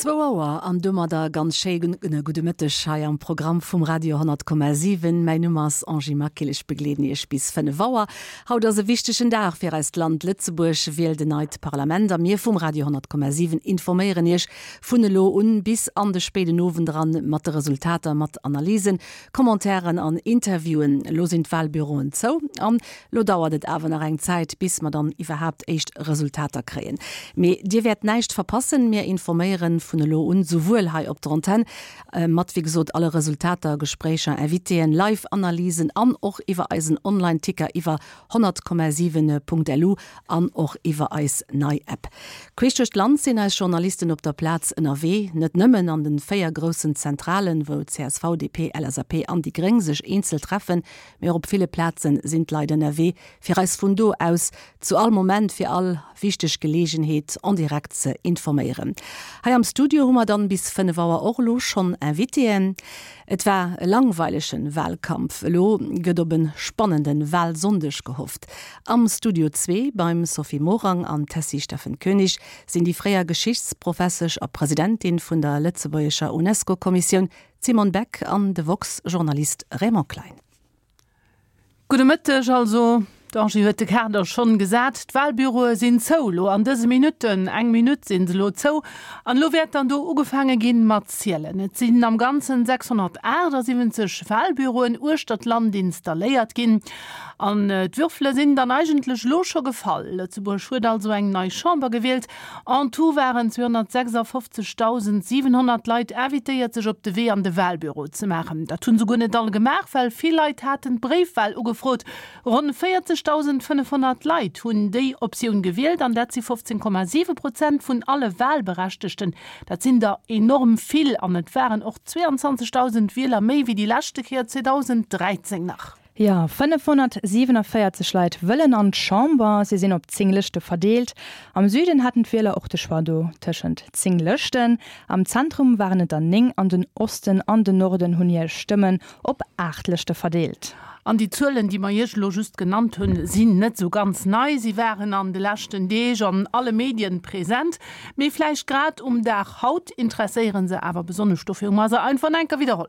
Zwou Auer an domadder ganz schéi gudde Mëtteg hei am Programm vum Radio 10,7. Mäin Numm ass Angie Maquil, ech begleeden Iech bis 5 Auer. Haut ass e wichtegen Dag fir eist Land, Lëtzebuerg wielt en neit Parlament a mir vum Radio 10,7 informéieren Iech vun elo un bis an de spéiden Owend eran mat de Resultater, mat Analysen, Commentairen an Interviewen. Elo sinn d'Walbüroen zou an Lo dauert et awer nach eng Zäit, bis mer dann iwwerhaapt éischt Resultater kréien. Mee Dir wäert näischt verpassen, mir informéieren vun elo un souwuel hei op der Antenn, mat wéi gesot alle Resultater, Gespréicher, Invitéen, Live-Analysen an och iwwer eisen Online-Ticker iwwer 100,7.lu an och iwwer eis nei App. Queesch duerch d'Land sinn eis Journalisten op der Plaz ënnerwee, net nëmmen an den 4 groussen Zentralen, wou csv, DP, LSAP an déi Gréng sech eenzel treffen, Mee och op ville Plaze sinn d'Leit ënnerwee, fir eis vun do aus zu all Moment fir all wichteg Geleegenheet en direct ze informéieren. Hei am Studio hu mer dann bis 5 Auer och elo schonn Invitéen. Et war e langweilegen Wahlkampf, elo gëtt op e spannende Wahlsonndeg gehofft. Am Studio zwee beim Sophie Morang an Tessy Steffen Koenig sinn déi fréier Geschichtsprofessesch a Presidentin vun der lëtzebuergescher UNESCO-Kommissioun D'Simone Beck an de woxx-Journalist Raymond Klein. Gudde Mëtteg. Also, d'Angie huet de Kader schonn gesat. D'Wahlbüroe sinn zou elo an dëse Minutten. Eng Minutt sinn se elo zou an elo wäert dann do ugefaange ginn mat zielen. Et sinn am Ganzen 678 Wahlbüroen uechter d'Land installéiert ginn an d'Würfele sinn dann eigentlech elo scho gefall. Lëtzebuerg huet also eng nei Chamber gewielt. En tout waren 256.700 Leit invitéiert sech op de Wee an de Walbüro ze maachen. Dat hunn souguer net all gemaach, well vill Leit haten d'Bréifwal ugefrot. Ronn 40.500 Leit hunn déi Optioun gewielt an dat si 15,7 Prozent vun alle Walberechtegten. Dat sinn der enorm vill an et waren och 22.000 Wieler méi wéi déi leschte Kéier 2013 nach. Jo, 547 Leit wëllen an d'Chamber. Si sinn op 10 Lëschte verdeelt. Am Süden haten d'Wieler och de Choix do tëschent 10 Lëschten. Am Zentrum waren et der 9 an den Osten an den Norden hunn hir Stëmmen op 8 Lëschte verdeelt. An déi Zuelen, déi mer Iech elo just genannt hunn, sinn net esou ganz nei. Si waren an de leschten Deeg an alle Medien present. Mee vläicht grad um Dag haut interesséiere se awer besonnesch. Dofir hu mer se einfach nach enker widderholl.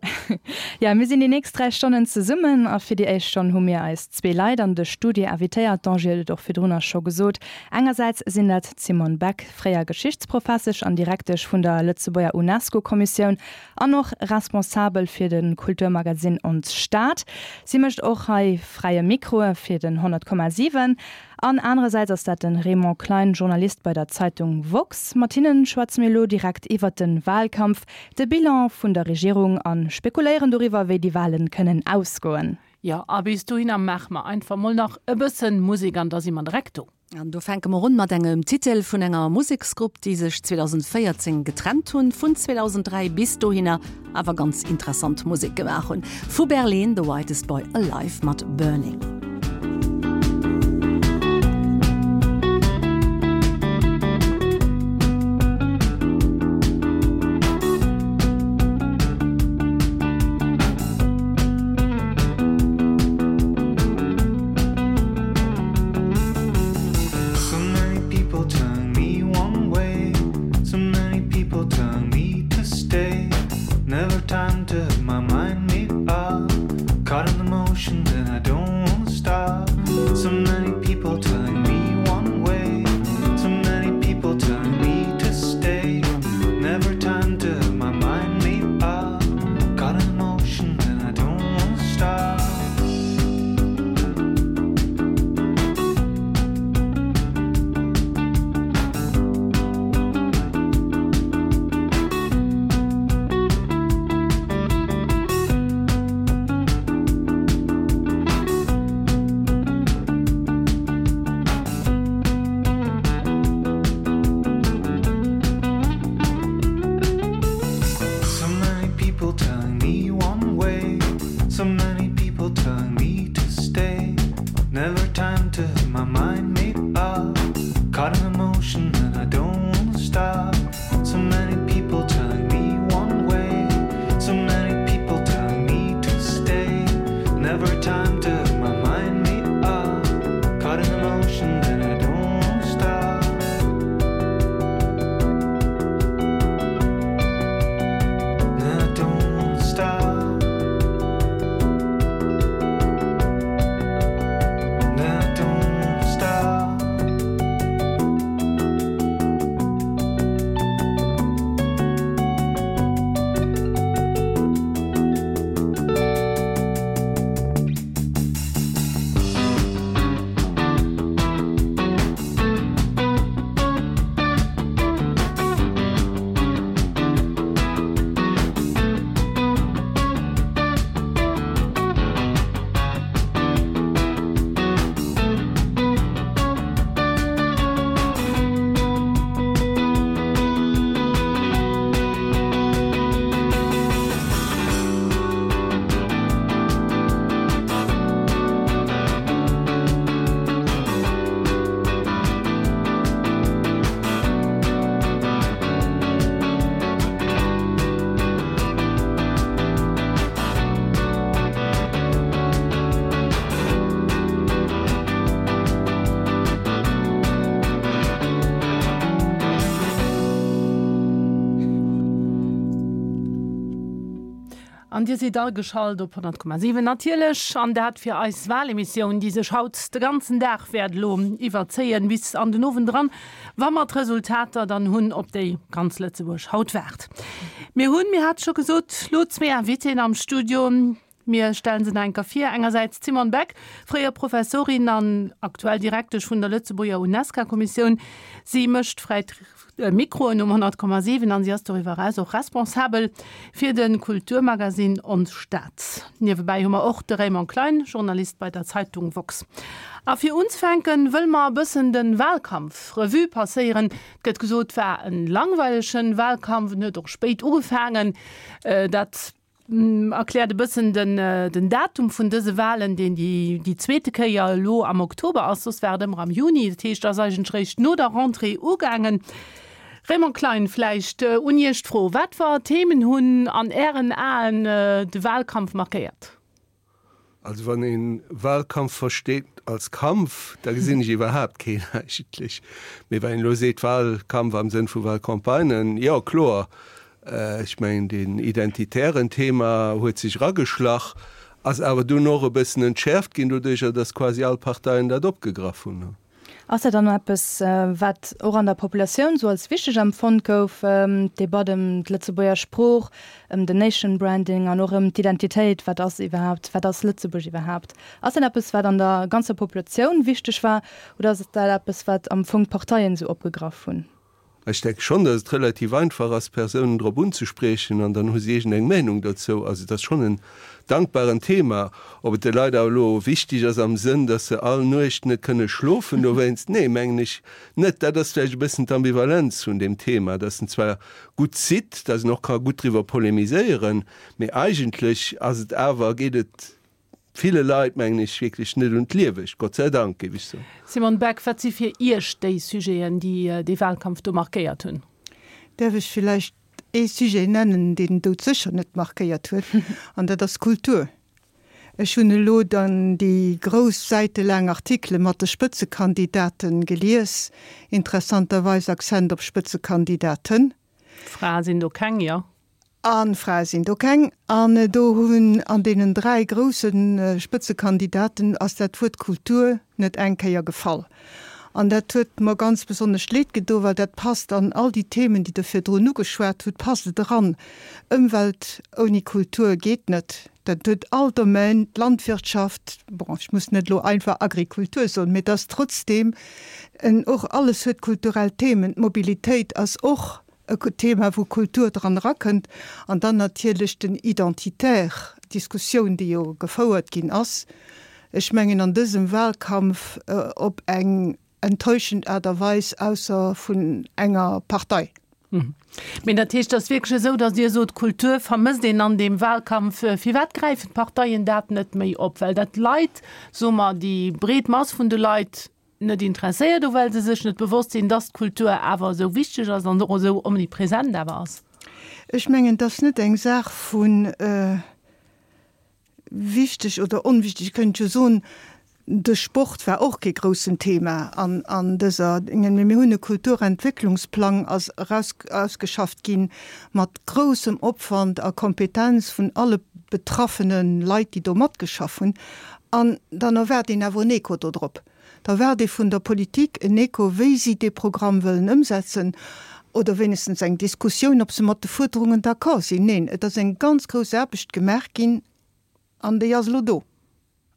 Jo, mir sinn déi nächst 3 Stonnen zesummen a fir déi éischt Stonn hu mir eis zwee Leit an de Studio invitéiert. D'Angie huet et och virdrunner scho gesot. Engersäits sinn dat d'Simone Beck, fréier Geschichtsprofessesch an Direktesch vun der Lëtzebuerger UNESCO-Kommissioun an och Responsabel fir de Kulturmagazin Ons Stad. Si mécht och hei fräie Mikro fir den 100,7. An anerersäits ass dat de Raymond Klein, Journalist bei der Zeitung woxx. Mat hinnen schwätze mir elo direkt iwwert de Wahlkampf, de Bilan vun der Regierung a spekuléieren doriwwer, wéi déi Wahlen kënnen ausgoen. Jo, a bis dohinner maache mer einfach mol nach e bëssen Musek an da si mer direkt do. An do fänke mer un mat engem Titel vun enger Museksgrupp, déi sech 2014 getrennt hunn, vun 2003 bis dohinner awer ganz interessant Musek gemaach hunn. Vu Berlin, The Whitest Boy Alive mat Burning. So many people turn me one way So many people turn me to stay Never time to have my mind made up Caught in the motion and I don't wanna stop. An Dir sidd ageschalt op 100,7 natierlech, an dat fir eis Wahlemissioun, déi sech haut de ganzen Dag wäert elo iwwerzéien, bis an den Owend eran, wa mer d'Resultater dann hunn, op déi ganz Lëtzebuerg haut waart. Mir hunn, mir hate scho gesot, elo zwee Invitéen am Studio. Mir stellen se nach eng Kéier vir, engersäits d'Simone Beck, fréier Professorin an aktuell Direktesch vun der Lëtzebuerger Unesca-Kommissioun. Si mécht fräi Mikroen um 100,7 an si ass doriwwer eraus och responsabel fir de Kulturmagasinn Ons Stad. Niewebäi hu mer och de Raymond Klein, Journalist bei der Zeitung woxx. A fir unzefänken, wëlle mer e bëssen de Wahlkampf Revue passéieren. Et gëtt gesot, war en langweilegen Wahlkampf, en huet och spéit ugefaangen. Dat Erkläert e bëssen den den Datum vun dëse Wahlen, deen déi déi zweete Kéier elo am Oktober ass, soss war et ëmmer am Juni. Dat heescht, ass eigentlech réischt no der Rentrée ugaangen. Raymond Klein, vläicht un Iech d'Fro, Wat fir Themen hunn an Ären Aen de Wahlkampf markéiert? Also wann ee Wahlkampf versteet als Kampf, da gesinn ech iwwerhaapt keen eigentlech. Mee wann een elo seet Wahlkampf am Sënn vu Wahlcampagnen, jo kloer, ech mengen deen identitären Thema huet sech erageschlach, ass awer dunn och e bëssen entschäerft ginn doduercher, datt quasi all Parteien dat opgegraff hunn. Ass dat dann eppes, wat och an der Populatioun esou als wichteg empfonnt gouf, d'Debatt ëm d'Lëtzebuerger Sprooch, ëm den Nation Branding an och ëm d'Identitéit, wat ass iwwerhaapt, wat ass Lëtzebuerg iwwerhaapt? Ass dat eppes, wat an der ganzer Populatioun wichteg war oder ass dat eppes, wat am Fong d'Parteien esou opgegraff hunn? Ech denke schonn, datt et relativ einfach ass, Persounen drop unzespriechen an dann hu si iergendeng Meinung dozou. Also et ass schonn en dankbaren Thema. Ob et de Leit awer elo wichteg ass am Sënn, datt se all Nuecht net kënne schlofen dowéinst, nee, mengen ech net. Dat ass vläicht e bëssen d'Ambivalenz vun deem Thema, datt en zwar gutt zitt, datt een och ka gutt driwwer polemiséieren, mee eigentlech ass et awer, geet et ville Leit, mengen ech, wierklech net un d'Liewegt, Gott sei Dank, géif ech soen. Simone Beck, Wat si fir Iech déi Sujeten, déi dee Wahlkampf do markéiert hunn? Däerf ech villäicht ee Sujet nennen, deen doudsécher net markéiert huet, an dat ass d'Kultur. Ech hunn elo dann déi grouss säitelaang Artikele mat de Spëtzekandidate gelies, interessanterweis Accent op Spëtzekandidaten. Frae sinn do keng, jo. A Frae sinn do keng. An do hunn an deenen 3 grousse Spëtzekandidaten ass dat Wuert Kultur net eng Kéier gefall. An dat huet mer ganz besonnesch leed gedo, well dat passt an all déi Themen, déi Der virdrun ugeschwat hutt, passt et eran. Ëmwelt ouni Kultur geet net. Dat huet all Domaine, d'Landwirtschaft, bon, ech muss net elo einfach Agrikultur soen, mee et ass trotzdeem en, och alles huet kulturell Themen. D'Mobilitéit ass och e Thema wou Kultur dran erakënnt an dann natierlech den Identitaire, d'Diskussioun déi jo gefouert ginn ass, ech mengen an dësem Wahlkampf op eng enttäuschend Aart a Weis, ausser vun enger Partei. Mee dat heescht, et ass wierklech esou, datt Dir sot, Kultur vermësst een an deem Wahlkampf. Firwat gräifen d'Parteien dat net méi op? Well dat d'Leit, soe mer, déi breet Mass vun de Leit, net interesséiert o well se sech net bewosst sinn, dass d'Kultur awer esou wichteg ass an och esou omnipresent awer ass? Ech mengen, et ass net eng Saach vu wichteg oder onwichteg. Ech kéint jo soen, de Sport war och kee groussen Thema an dëser Dingen. Mee mir hunn e Kulturentwécklungsplang ass eraus ausgeschafft gi mat groussem Opwand a Kompetenz vun alle betraffene Leit, déi do matgeschaff hunn. An dann erwaart een awer en Echo dodrop. Da erwaart ee vun der Politik en Echo, wéi si dee Programm wëllen ëmsetzen, oder wéinegstens eng Diskussioun, ob se mat de Fuerderungen d'accord sinn. Neen, et ass eng ganz grouss Aarbecht gemaach ginn an déi ass elo do.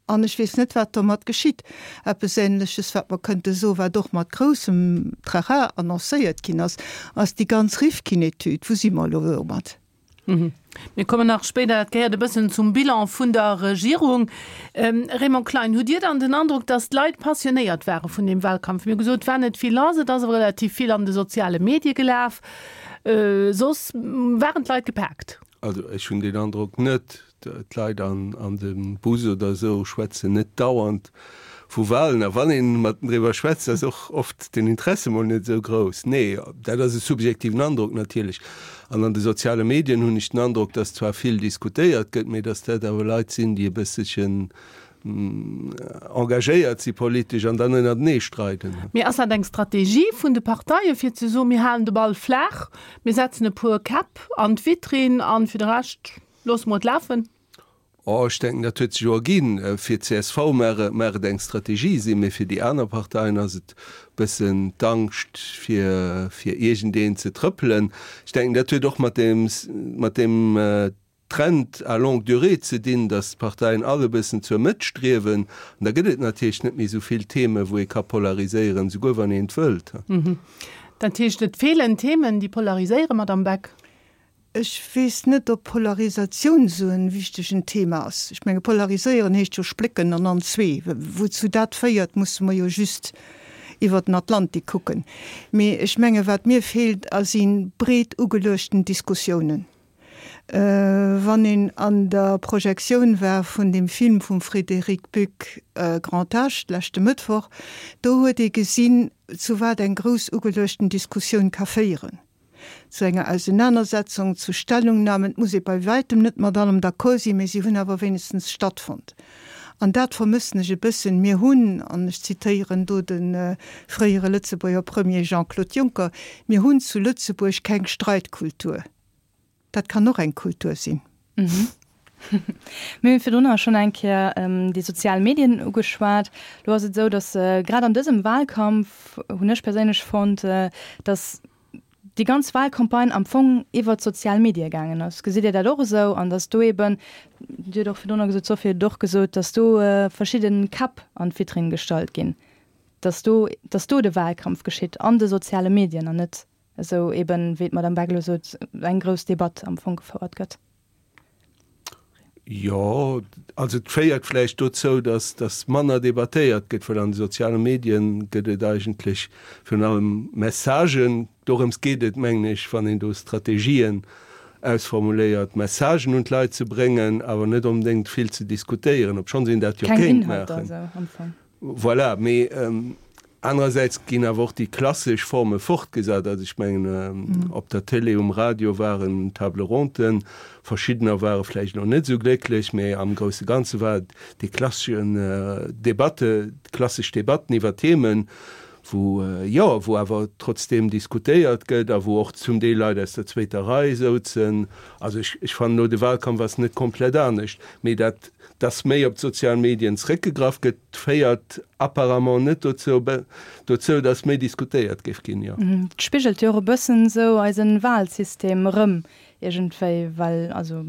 An ech weess net, wat domat geschitt. Eppes Ähnleches, wat mer kënnte soen, wat och mat groussem Trara annoncéiert ginn ass, ass déi ganz Rifkin-Etüd. Wou si mer elo domat? Mir kommen nach spéider, dat gehéiert e bëssen zum Bilan vun der Regierung. Raymond Klein, hutt Dir dann den Androck, datt d'Leit passionéiert ware vun deem Wahlkampf? Mir hu gesot, et war net vill lass, et ass awer relativ vill an de soziale Medie gelaf. Soss waren d'Leit gepaakt. Also ech hunn deen Androck net. D'Leit an dem Bus oder esou schwätzen net dauernd vu Wahlen. A wann ee mat driwwer schwätzt, ass och oft den Interesse mol net esou grouss. Nee, dat ass e subjektiven Androck natierlech. An an de soziale Medien hunn ech den Androck, datt zwar vill diskutéiert gëtt, mee datt dat awer Leit sinn, déi e bësselchen engagéiert si politesch an dann ënnertenee streiden. Mee ass dat eng Strategie vun de Parteie fir ze soen, mir halen de Ball flaach, mir setzen e puer Käpp an d'Vitrinn an fir de Rescht. Loosse mer et lafen? Oh, ech denken, dat huet sech jo erginn. Fir d'CSV mag et eng Strategie sinn, mee fir déi aner Parteien ass et e bëssen d'Angscht, fir fir iergendeen ze trëppelen. Ech denken, dat huet och mat deem mat deem Trend à longue durée ze dinn, datt d'Parteien all e bëssen zur Mëtt striewen. An da gëtt et natierlech net méi esou vill Themen, wou ee ka polariséieren, souguer wann een et wëllt. Dat heescht, et feelen Themen, déi polariséieren, Madamm Beck? Ech weess net, ob Polarisatioun esou e wichtegen Thema ass. Ech menge polariséieren heescht jo splécken an an zwee. Wouzou dat féiert, musse mer jo just iwwer den Atlantik kucken. Mee ech menge wat mir feelt, si breet ugeluechten Diskussiounen. Wann een an der Projektioun war vun deem Film vum Frédéric Buck Grand Âge leschte Mëttwoch, do huet ee gesinn, zu wat eng grouss ugeluechten Diskussioun ka féieren. Zu enger Ausenanersetzung, zu Stellungnahmen. Et muss ee bei wäitem net mat allem d'accord sinn, mee si hunn awer wéinegstens stattfonnt. An dat vermëssen ech e bëssen. Mir hunn, an ech zitéieren do de fréiere Lëtzebuerger Premier Jean-Claude Juncker, mir hunn zu Lëtzebuerg keng Streitkultur. Dat kann och eng Kultur sinn. Mir hunn virdrunner schonn eng Kéier déi sozial Medien ugeschwat. Lo ass et esou, datt grad an dësem Wahlkampf, hunn ech perséinlech fonnt, datt déi ganz Wahlcampagne am Fong iwwert d'sozial Medie gaangen ass. Gesitt Dir dat och esou? An datt do eeben, Dir hutt och virdrunner gesot, d'Sophie huet et och gesot, datt do verschidde Käpp an d'Vitrinn gestallt ginn, datt do, datt do de Wahlkampf geschitt an de soziale Medien an net esou eben, wéi d'Madame Beck elo sot, eng grouss Debatt am Fong gefouert gëtt. Jo, also et féiert vläicht dozou, datt datt manner debattéiert gëtt, well an de soziale Medien gëtt et eigentlech virun allem Messagen. Dorëms geet et, mengen ech, wann een do Strategien ausformuléiert, Messagen un d'Leit ze bréngen, awer net onbedéngt vill ze diskutéieren, obschonns een dat jo Keng kéint Inhalter maachen. esou am Fong. Voilà, mee anerersäits ginn awer och déi klassesch Forme fortgesat. Also ech mengen, op der Télé, um Radio waren Table ronden, verschiddener ware vläicht elo net esou glécklech, mee am grousse Ganze war et déi klasseschen Debatte, klassesch Debatten iwwer Themen, wou, jo, wou awer trotzdeem diskutéiert gëtt a wou och zum Deel Leit aus der zweeter Rei souzen. Also ech, ech fannen elo, de Wahlkampf ass net komplett anescht, mee dat, dass méi op d'sozial Medien zréckgegraff gëtt, féiert apparemment net dozou, dozou, dass méi diskutéiert géif ginn, jo. Et spigelt jo och e bëssen esou eisen Wahlsystem erëm iergendwéi, well also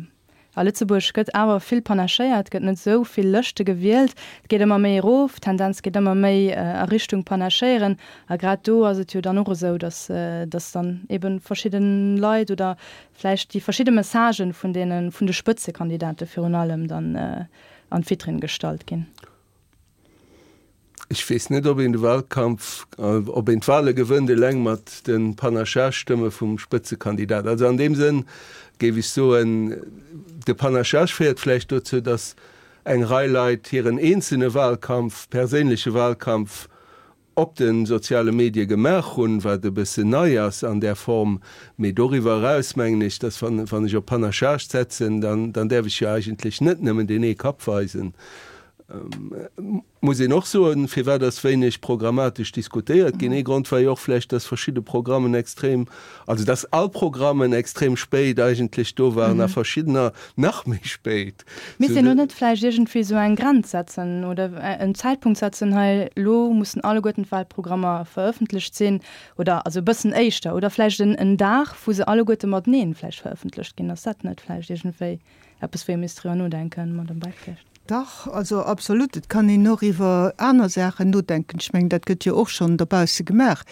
a Lëtzebuerg gëtt awer vill panachéiert, gëtt net esou vill Lëschte gewielt, et geet ëmmer méi erof, d'Tendenz geet ëmmer méi a Richtung panachéieren a grad do ass et jo dann och esou, dass dass dann eben verschidde Leit oder vläicht déi verschidde Messagen vun deene vun de Spëtzekandidate virun allem dann an d'Vitrinn gestallt ginn. Ech weess net, ob een de Wahlkampf, ob een d'Wahle gewënnt eleng mat de Panachage-Stëmme vum Spëtzekandidat. Also an deem Sënn géif ech soen, de Panachage féiert vläicht dozou, datt eng Rei Leit hiren eenzelne Wahlkampf, perséinleche Wahlkampf op de soziale Medie gemaach hunn, wat e bëssen nei ass an där Form. Mee doriwwer eraus mengen ech, datt wann ech op Panachage setzen, dann däerf ech jo eigentlech net nëmmen deen ee Kapp weisen. Muss een och soen, firwat ass wéineg programmatesch diskutéiert ginn? Ee Grond war jo och vläicht, dass verschidde Programmen extrem, also dass all Programmen extrem spéit eigentlech do waren a verschiddener nach méi spéit. Misst een do net vläicht iergendwéi esou eng Grenz setzen oder en Zäitpunkt setzen, hei elo mussen alleguerten d'Wahlprogrammer verëffentlecht sinn oder also e bëssen éischter oder vläicht en Dag, wou se alleguerte mateneen vläicht verëffentlecht ginn? Ass dat net vläicht iergendwéi eppes, wou ee misst driwwer nodenken, Madame Beck vläicht? Dach, also absolut. Et kann een och iwwer aner Saachen nodenken. Ech mengen, dat gëtt jo och schonn dobausse gemaach.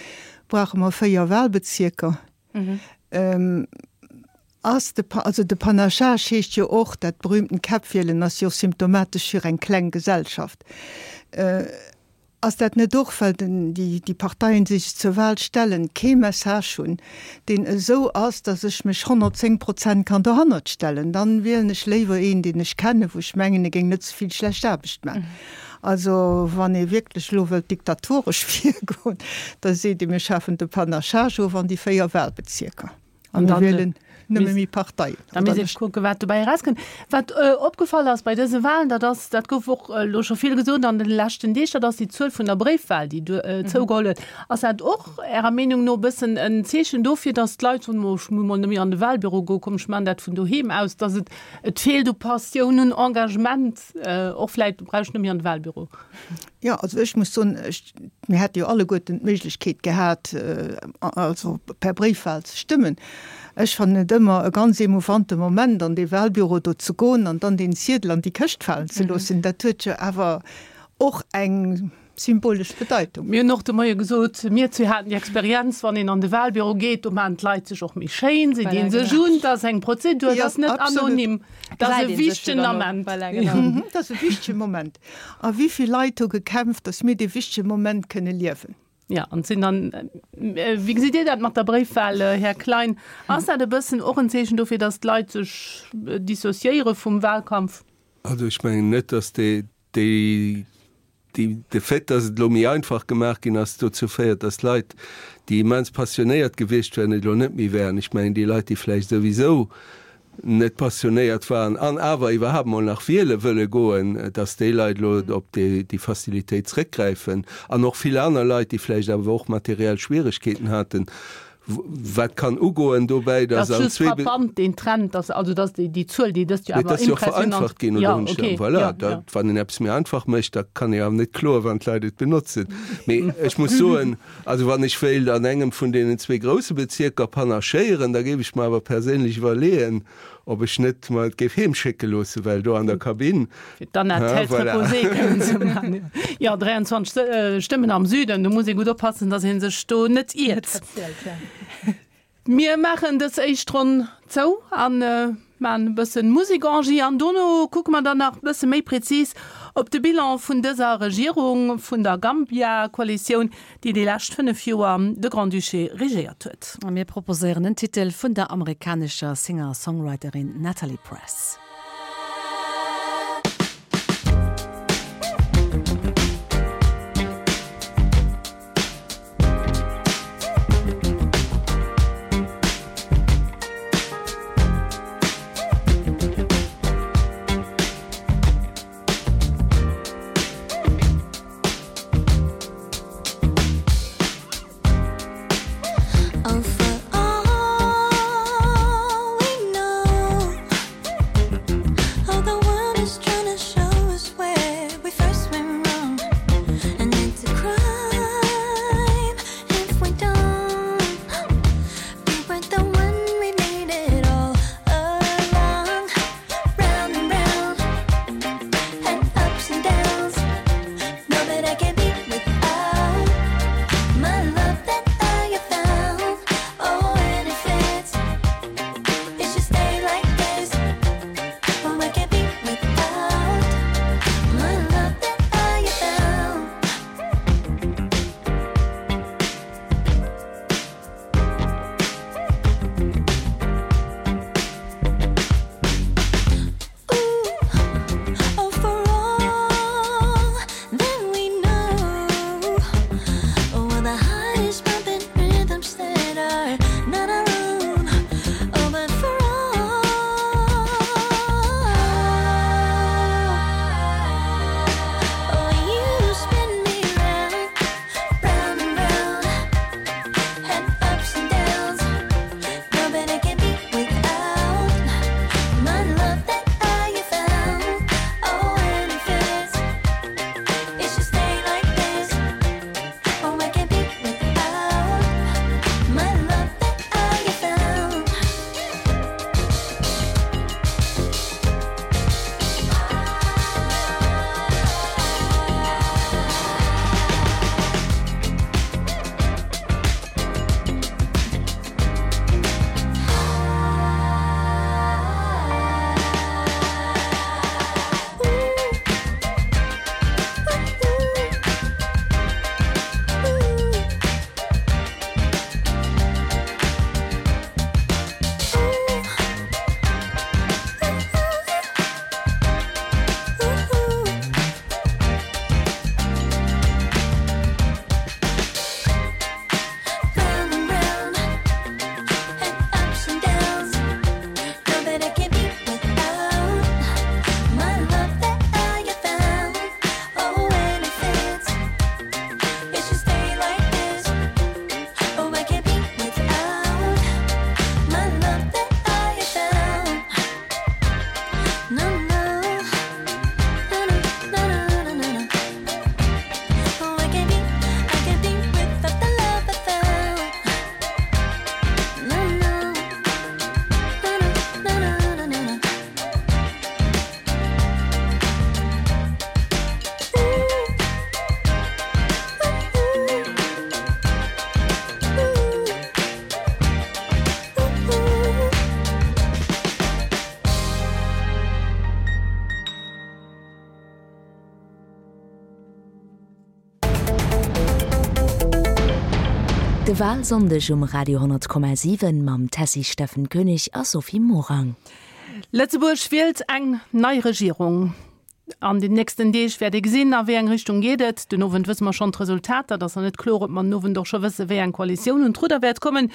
Brauche mer 4 Wahlbezierker? Ass de, also de Panachage heescht jo och, dat berühmten Käppwielen ass jo och symptomatesch fir eng kleng Gesellschaft. Ass dat net och, well den, déi, déi Parteien, déi sech zur Wahl stellen, kee Message hunn, deen esou ass, datt ech mech 110 Prozent kann dohannert stellen? Dann wielen ech léiwer een, deen ech kennen, wou ech mengen, e géing net ze vill schlecht Aarbecht man. Also, wann ee wierklech elo wëllt diktatoresch virgoen, da seet ee, mir schafen de Panachage of an déi 4 Wahlbezierker. An mir wielen. Nëmme méi Parteien. Da misst ee kucken, wat dobäi erauskënnt. Wat opgefall ass bei dëse Wahlen, dat ass, dat gouf och elo scho vill gesot an de leschten Deeg, dat ass déi Zuel vun der Bréifwahl, déi zougeholl huet. Ass dat och Ärer Meenung no e bëssen en Zeechen dofir, datt d'Leit soen, oh ech muss mol net méi an de Wahlbüro goen, komm ech maachen dat vun doheem aus, datt et, et feelt u Passioun, un Engagement, och vläicht brauch ech net méi an de Wahlbüro? Jo, also ech muss soen, ech, mir hätte jo alleguerten d'Méiglechkeet gehat, also per Bréifwahl ze stëmmen. Ech fannen et ëmmer e ganz émouvante Moment, an dee Wahlbüro do ze goen an dann deen Ziedel an déi Këscht falen ze loossen. Dat huet jo awer och eng symbolesch Bedeitung. Mir hunn och de Moie gesot, mir zwee haten déi Experienz, wann een an de Wahlbüro geet, do maachen d'Leit sech och méi schéin, se dinn sech un, dat ass eng Prozedur, dat ass net anonym, dat ass e wichtegen Ament. Dat ass e wichtege Moment. A wéi vill Leit hu gekämpft, datt mir dee wichtege Moment kënne liewen. Jo, an et sinn dann, wéi gesitt Dir dat mat der Bréifwahl, Här Klein? Ass dat e bëssen och en Zeechen dofir, datt d'Leit sech dissociéiere vum Wahlkampf? Also ech mengen net, datt déi, déi, de Fait, datt et elo méi einfach gemaach ginn ass, dozou féiert, datt Leit, déi immens passionéiert gewiescht wären, et elo net méi wären. Ech mengen, déi Leit, déi vläicht souwisou net passionéiert waren an awer iwwerhaapt mol nach wiele wëlle goen, dass déi Leit elo op déi Facilitéit zréckgräifen an och vill aner Leit, déi vläicht awer och materiell Schwieregkeeten haten, wat kann ugoen dobäi, dass an zwee. Dat ass just frappant, deen Trend, dass also dass déi Zuel, déi dëst Joer awer impressionant. Mee et ass jo och vereinfacht ginn, oder hunn ech da, voilà, da wann een eppes méi einfach mécht, da kann ee awer net kloen, wann d'Leit et benotzen. Mee ech muss soen, Also wann ech wéilt an engem vun deenen zwee grousse Bezierker panachéieren, da géif ech mer awer perséinlech iwwerleeën, ob ech net mer et géif heem schécke loossen, well do an der Kabinn, Fir d'Anna hein, Tête voilà. reposée kënnen ze maachen. Jo, 23 Stëmmen am Süden, do muss ee gutt oppassen, datt ee sech do net iert. Mir maachen dës éischt Ronn zou a maachen e bëssen Musek, Angie, an dono kucke mer dann nach e bësse méi prezis op de Bilan vun dëser Regierung vun der Gambia-Koalitioun, déi déi lescht 5 Joer de Grand-Duché regéiert huet. A mir proposéieren en Titel vun der amerikanescher Singer-Songwriterin Natalie Press. Oh, for all we know. De Walsonndeg um Radio 10,7 mam Tessy Steffen Koenig a Sophie Morang. Lëtzebuerg wielt eng nei Regierung. An den nächsten Deeg wäert ee gesinn, a wéi eng Richtung geet et. Den Owend wësse mer schonn d'Resultater. Et ass nach net kloer, ob mer den Owend och scho wësse wéi eng Koalitioun un d'Rudder wäert kommen.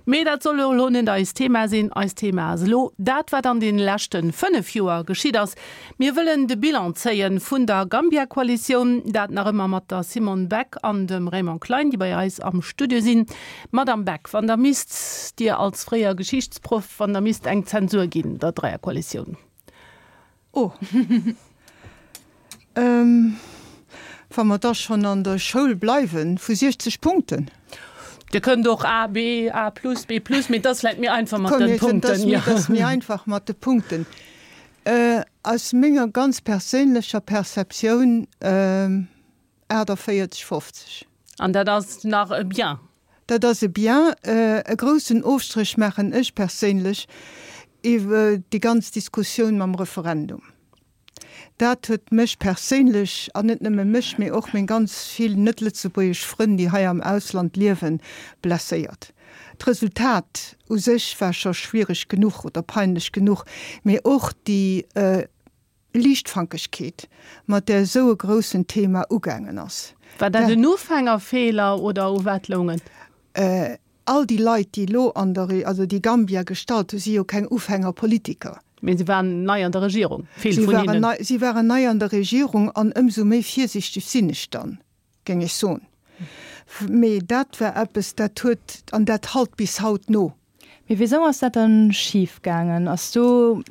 Mee dat soll jo elo net eist Thema sinn. Eist Thema ass elo dat, wat an deene leschte 5 Joer geschitt ass. Mir wëllen de Bilan zéien vun der Gambia-Koalitioun, dat nach ëmmer mat der Simone Beck an dem Raymond Klein, déi bei eis am Studio sinn. Madamm Beck, wann Der misst, Dir als fréier Geschichtsproff, wann Der misst eng Zensur ginn der Dräierkoalitioun? Oh. Wa mer da schonn an der Schoul bleiwen, vu 60 Punkten. Dir kënnt och A, B, A plus, B plus, mee et ass vläicht méi einfach mat de Punkten. Et ass méi einfach mat de Punkten. Aus menger ganz perséinlecher Perceptioun 48, 50. An dat ass nach e Bien. Dat ass e Bien. E groussen Ofstréch maachen ech perséinlech iwwer déi ganz Diskussioun mam Referendum. Dat huet mech perséinlech, an net nëmme mech, mee och meng ganz vill net-lëtzebuergesch Frënn, déi hei am Ausland liewen, blesséiert. D'Resultat u sech war scho schwiereg genuch oder peinlech genuch, mee och déi Liichtfankegkeet, mat där esou e groussen Thema ugaangen ass. War dat en Ufängerfeeler oder u wat loung et? All déi Leit, déi elo an der, also déi Gambia gestallt hu si jo keng Ufängerpolitiker. Mee se waren nei an der Regierung, vill vun hinnen. Si waren nei an der Regierung an ëmsou méi virsichteg sinn ech dann, géing ech soen. Mee dat war eppes, dat huet, an dat halt bis haut no. Mee wisou ass dat dann schif gaangen? Ass do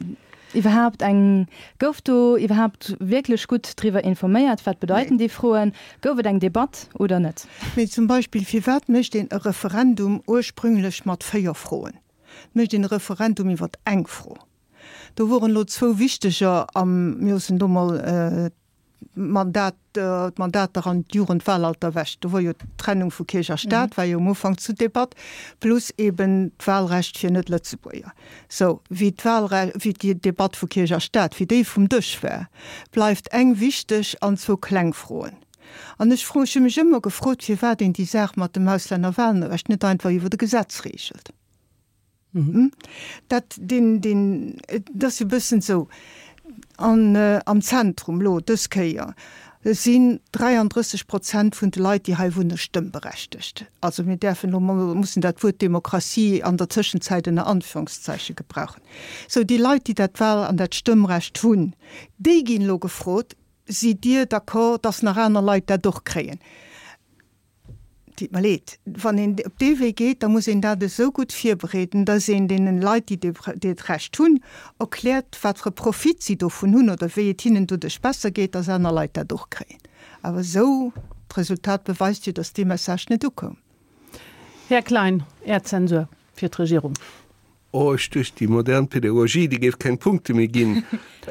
iwwerhaapt eng, gouf do iwwerhaapt wierklech gutt driwwer informéiert? Wat bedeiten déi Froen? Gouf et eng Debatt oder net? Mee zum Beispill, firwat mécht een e Referendum ursprünglech mat 4 Froen? Et mécht een e Referendum iwwer eng Fro. Do woren elo zwou wichteger am, mir loossen do mol d'Mandat, d'Mandater an d'Jugendwahlalter ewech. Do wor jo d'Trennung vu Kierch a Staat war jo um Ufank zu Debatt, plus eben d'Wahlrecht fir Net-Lëtzebuerger. Sou, wéi d'Wahlre, wéi déi Debatt vu Kierch a Staat, wéi déi vum Dësch war, bleift eng wichteg an zwou kleng Froen. An ech fro, ech hu mech ëmmer gefrot, firwat een déi Saach mat dem Auslännerwahlrecht net einfach iwwer e Gesetz regelt. Dat, deen, deen, et ass jo e bëssen esou, an am Zentrum elo dës Kéier sinn 33 Prozent vun de Leit, déi hei wunne, stëmmberechtegt. Also mir däerfen elo mol, mussen dat Wuert Demokratie an der Tëschenzäit ënner Anführungszeiche gebrauchen. Sou, déi Leit, déi dat Wahl an dat Stëmmrecht hunn, déi ginn elo gefrot, Sidd Dir d'accord, dass nach aner Leit dat och kréien? Deet mer leed. Wann een op dee Wee geet, da muss een dat esou gutt virbereeden, dass een deenen Leit, déi dat Recht hunn, erkläert, wat fir e Profit si dovun hunn oder wéi et hinnen doduerch besser geet, dass aner Leit dat och kréien. Awer esou, d'Resultat beweist jo, dass dee Message net ukoum. Här Klein, Är Zensur fir d'Regierung. Oh, ech duecht, déi modern Pädagogie, déi géif keng Punkte méi ginn,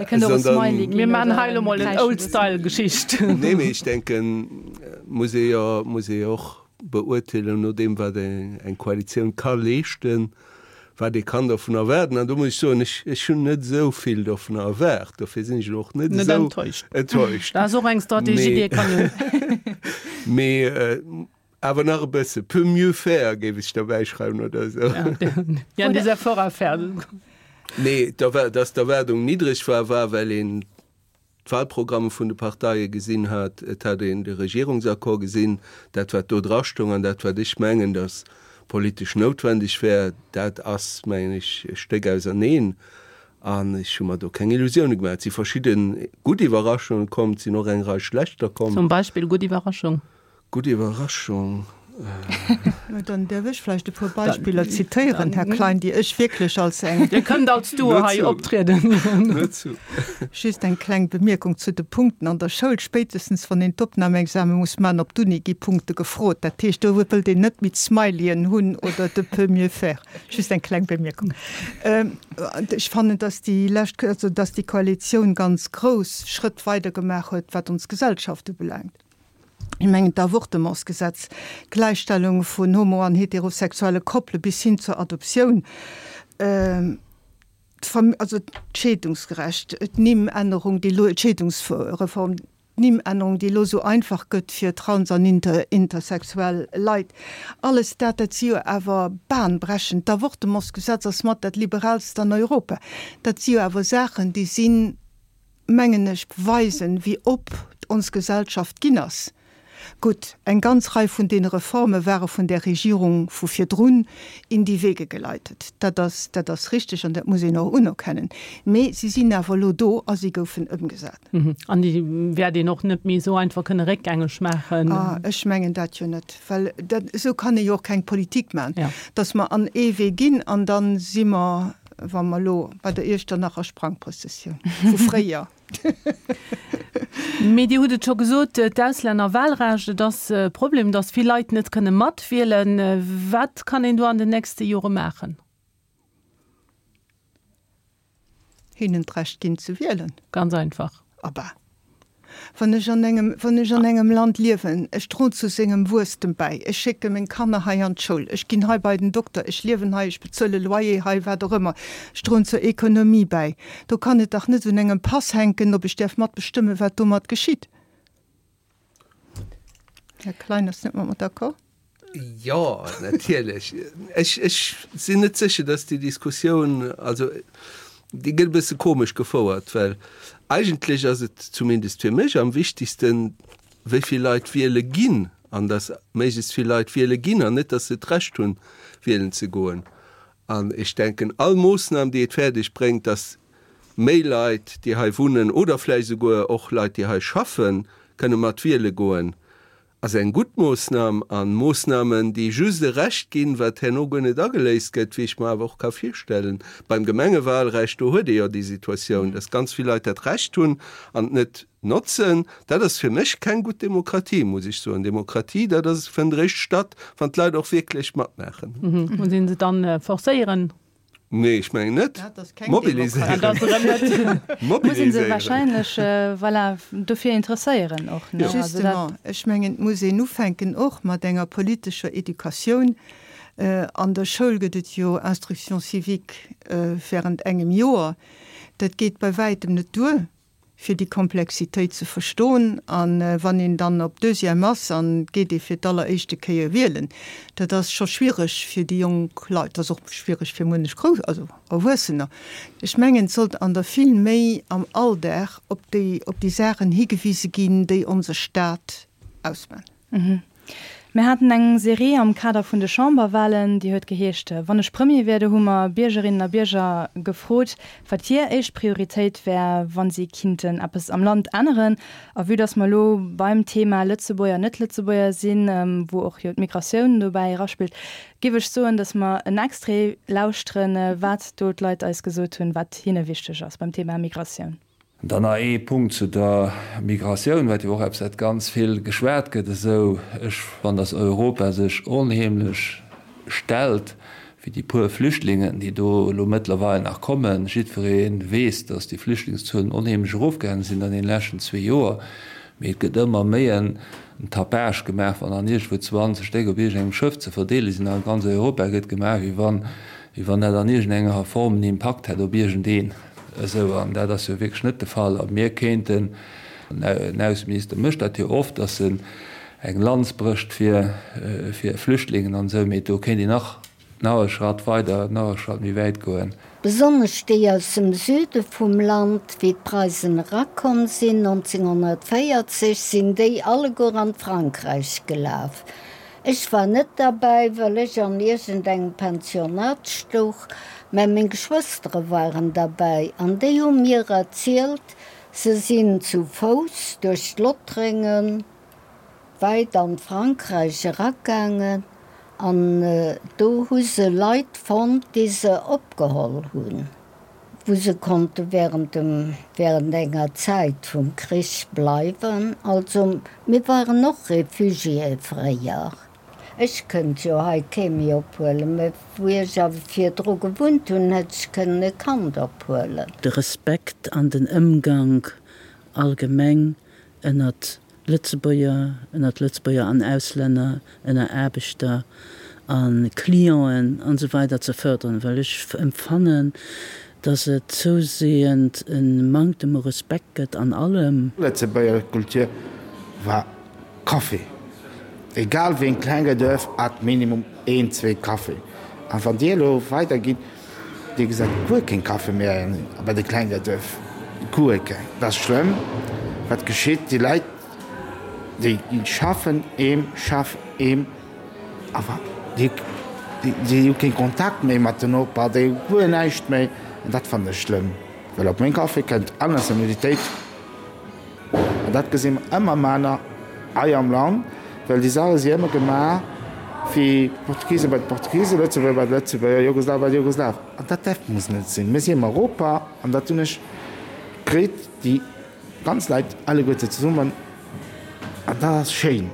sondern. Mir maachen hei elo mol en Old-Style-Geschicht. Nee, mee ech denken, muss ee jo, muss ee jo och beurteelen no deem, wat eng Koalitioun ka leeschten, wat ee kann dovun erwaarden. An do muss ech soen, ech, ech hunn net esou vill dovun erwaart, dofir sinn ech elo och net esou enttäuscht. Dat ass och eng Strategie, déi ee kann hunn. Mee Awer nach e bësse, peut mieux faire géif ech derbäi schreiwen oder esou. Il y a des efforts à faire. Nee, dass d'Erwaardung niddreg war, war well een d'Wahlprogramme vun de Parteie gesinn hat. Et hat een de Regierungsaccord gesinn, dat wat do drastoung an dat wat ech mengen, datt politesch noutwendeg wär, dat ass, mengen ech, e Stéck auserneen. An ech hu mer do keng Illusioune gemaach. Et si verschidde gutt Iwwerraschunge komm, et sinn och eng Rei schlechter komm. Zum Beispill gutt Iwwerraschung? Gutt Iwwerraschung. Mä dann däerf ech vläicht e puer Beispiller zitéieren, Här Klein, déi ech wierklech als eng. Dir kënnt als Duo hei optrieden. Nur zu. Just eng kleng Bemierkung zu de Punkten an der Schoul. Spéitestens wann een d'Opnamexame muss maachen op d'Uni, gi Punkte gefrot. Dat heescht, do wëllt een net méi d'Smileyen hunn oder de peut mieux faire. Just eng kleng Bemierkung. Ech fannen, dass déi lescht, also dass déi Koalitioun ganz grouss Schrëtt weidergemaach huet, wat ons Gesellschaft ubelaangt. Ech mengen d'Avortementsgesetz, d'Gläichstellung vun homo an heterosexuelle Koppele bis hin zur Adoptioun, also d'Scheedungsgerecht, d'Nimmännerung, déi elo, d'Scheedungsreform. D'Nimmännerung, déi elo esou einfach gëtt fir trans an intersexuell Leit, alles dat, dat si jo awer bahnbrechend. D'Avortementsgesetz ass mat dat liberaalst an Europa. Dat si jo awer Saachen, déi sinn, mengen ech, weisen, wéi op ons Gesellschaft ginn ass. Gutt, eng ganz Rei vun deene Reforme ware vun där Regierung vu virdrun in die Wege geleitet. Dat ass, dat ass richtig an dat muss een och unerkennen. Mee si sinn awer elo do a si goufen ëmgesat. An déi wäert een och net méi esou einfach kënne réckgängeg maachen. Ah, ech mengen dat jo net, well dat, esou kann ee jo och keng Politik maachen, dass mer an ee Wee ginn an da si mer, wa mer elo bei der Iechternacher Sprangprëssessioun vu fréier. Mee Dir hutt et scho gesot, d'Auslännerwahlrecht, et ass e Problem, datt vill Leit net kënne matwielen. Wat kann een do an den nächste Jore maachen? Hinnen d'Recht ginn ze wielen. Ganz einfach. Abba. Wann ech an engem, wann ech an engem Land liewen, ech droen zu sengem Wuesstem bäi, ech schécke meng Kanner hei an d'Schoul, ech ginn hei bei den Dokter, ech liewen hei, ech bezuele Loyer hei, wat och ëmmer, ech droen zur Ekonomie bäi, do kann et dach net un engem Pass hänken, ob ech däerf matbestëmmen, wat domat geschitt. Här Klein ass net mat mer d'accord. Jo, natierlech. Ech, ech sinn net sécher, dass déi Diskussioun, also déi gëtt e bësse komesch gefouert, well eigentlech ass et zumindest fir mech am wichtigsten, wéi vill Leit wiele ginn an dass méiglechst vill Leit wiele ginn an net, dass se d'Recht hunn, wielen ze goen. An ech denken, all Moossnam, déi et fäerdeg bréngt, dass méi Leit, déi hei wunnen oder vläicht esouguer och Leit, déi hei schaffen, kënne mat wiele goen, ass eng gutt Moossnam. A Moossnamen, déi just e Recht ginn, wat herno guer net ageléist gëtt, wéi ech mer awer och ka virstellen beim Gemengewalrecht, do huet ee jo déi Situatioun, dass ganz vill Leit dat Recht hunn an et net notzen. Dat ass fir mech keng gutt Demokratie, muss ech soen. Demokratie, dat ass, fënnt eréischt statt, wann d'Leit och wierklech matmaachen. Muss ee se dann forcéieren? Nee, ech mengen net. Mobiliséieren. Muss een se wahrscheinlech, voilà, dofir interesséieren och, ne? Justement, ech mengen, et muss een ufänken och mat enger politescher Educatioun. An der Schoul gëtt et jo Instruction civique während engem Joer. Dat geet bei wäitem net duer. fir déi Komplexitéit ze verstoen. A wann een dann op Deuxième ass an et geet ee fir d'alleréischte Kéier wielen, dat ass scho schwiereg fir déi jonk Leit, dat ass och schwiereg fir munnech Grouss, also Erwuessener. Ech mengen, et sollt an der vill méi am Alldag op déi, op déi Saachen higewise ginn, déi onse Staat ausman. Mir haten eng Serie am Kader vun de Chamberwahlen, déi huet geheescht Wann ech Premier wier. Do hu mer Biergerinnen a Bierger gefrot, wat hir éischt Prioritéit wär, wa si kinnten eppes am Land änneren. A vue dass mer elo beim Thema Lëtzebuerger, Net-Lëtzebuerger sinn, wou och jo d'Migratioun dobäi eraspillt, géif ech soen, dass mer en Extrait lauschteren, wat do d'Leit eis gesot hunn, wat hinne wichteg ass beim Thema Migratioun. Dann nach ee Punkt zu der Migratioun, wat jo och eppes wat ganz vill geschwat gëtt esou. Ech fannen, datt Europa sech onheemlech stellt fir déi puer Flüchtlingen, déi do elo mëttlerweil nach kommen. Jiddweree weess, datt déi Flüchtlingszuelen onheemlech erofgaange sinn an deene leschten zwee Joer, mee et gëtt ëmmer méi en Tapage gemaach, wann dann iergendwou 20 Stéck op iergendengem Schëff ze verdeele sinn. A ganz Europa gëtt gemaach, wéi wann, wéi wann dat an iergendenger Form en Impakt hätt op iergendeen. Esou, an dat ass jo wierklech net de Fall. A mir kéinten, den Ausseminister mécht dat jo oft, datt en eng Lanz brécht fir Flüchtlingen an esou, mee do kéint een nach, nach e Schratt weider, nach e Schratt méi wäit goen. Besonnesch déi aus dem Süde vum Land, wéi d'Preisen erakomm sinn 1940, sinn déi alleguer an d'Frankräich gelaf. Ech war net derbäi, well ech an iergendengem Pensionat stouch, mä meng Geschwëstere waren derbäi an déi hu mir erzielt, se sinn zu Fouss duerch d'Lottréngen wäit an d'Frankräich eragaangen an do hu se Leit fonnt, déi se opgeholl hunn, wou se konnte während dem, während enger Zäit vum Krich bleiwen. Also mir waren och Réfugiéë fréier. Ech kënnt jo hei kee méi ophuelen, mä wou ech awer virdru gewunnt hunn, hätt ech kënnen e Kand ophuelen. De Respekt an den Ëmgank allgemeng ënnert Lëtzebuerger, ënnert Lëtzebuerger an Auslänner, ënner Aarbechter a Clienten an esou weider ze fërderen, well ech empfannen, Dass et zousehend e Manktem u Respekt gëtt an allem. Lëtzebuerger Kultur war Café. Egal wéi en klenge Duerf hat minimum een, zwee Café. An wann dir elo weider gitt, dir gesäit guer keen Café méi bei de klenge Duerf. Guer keng. Dat ass schlëmm wat geschitt. Déi Leit déi schaffen eem, schaff eem. Awer déi hu kee Kontakt méi mat den Noper, déi hu guer näischt méi. An dat fannen ech schlëmm, well op meng Café kënnt all Nationalitéit. An dat gesi mer ëmmer manner hei am Land, well déi Saache si ëmmer gemaach fir d'Portugise bei d'Portugisen, Lëtzebuerger bei d'Lëtzebuerger, Jugoslaw bei d'Jugoslaw. An dat däerf muss net sinn. Mir si am Europa an dat hunn ech kritt, déi ganz Leit alleguerte zesummen, an dat ass schéin.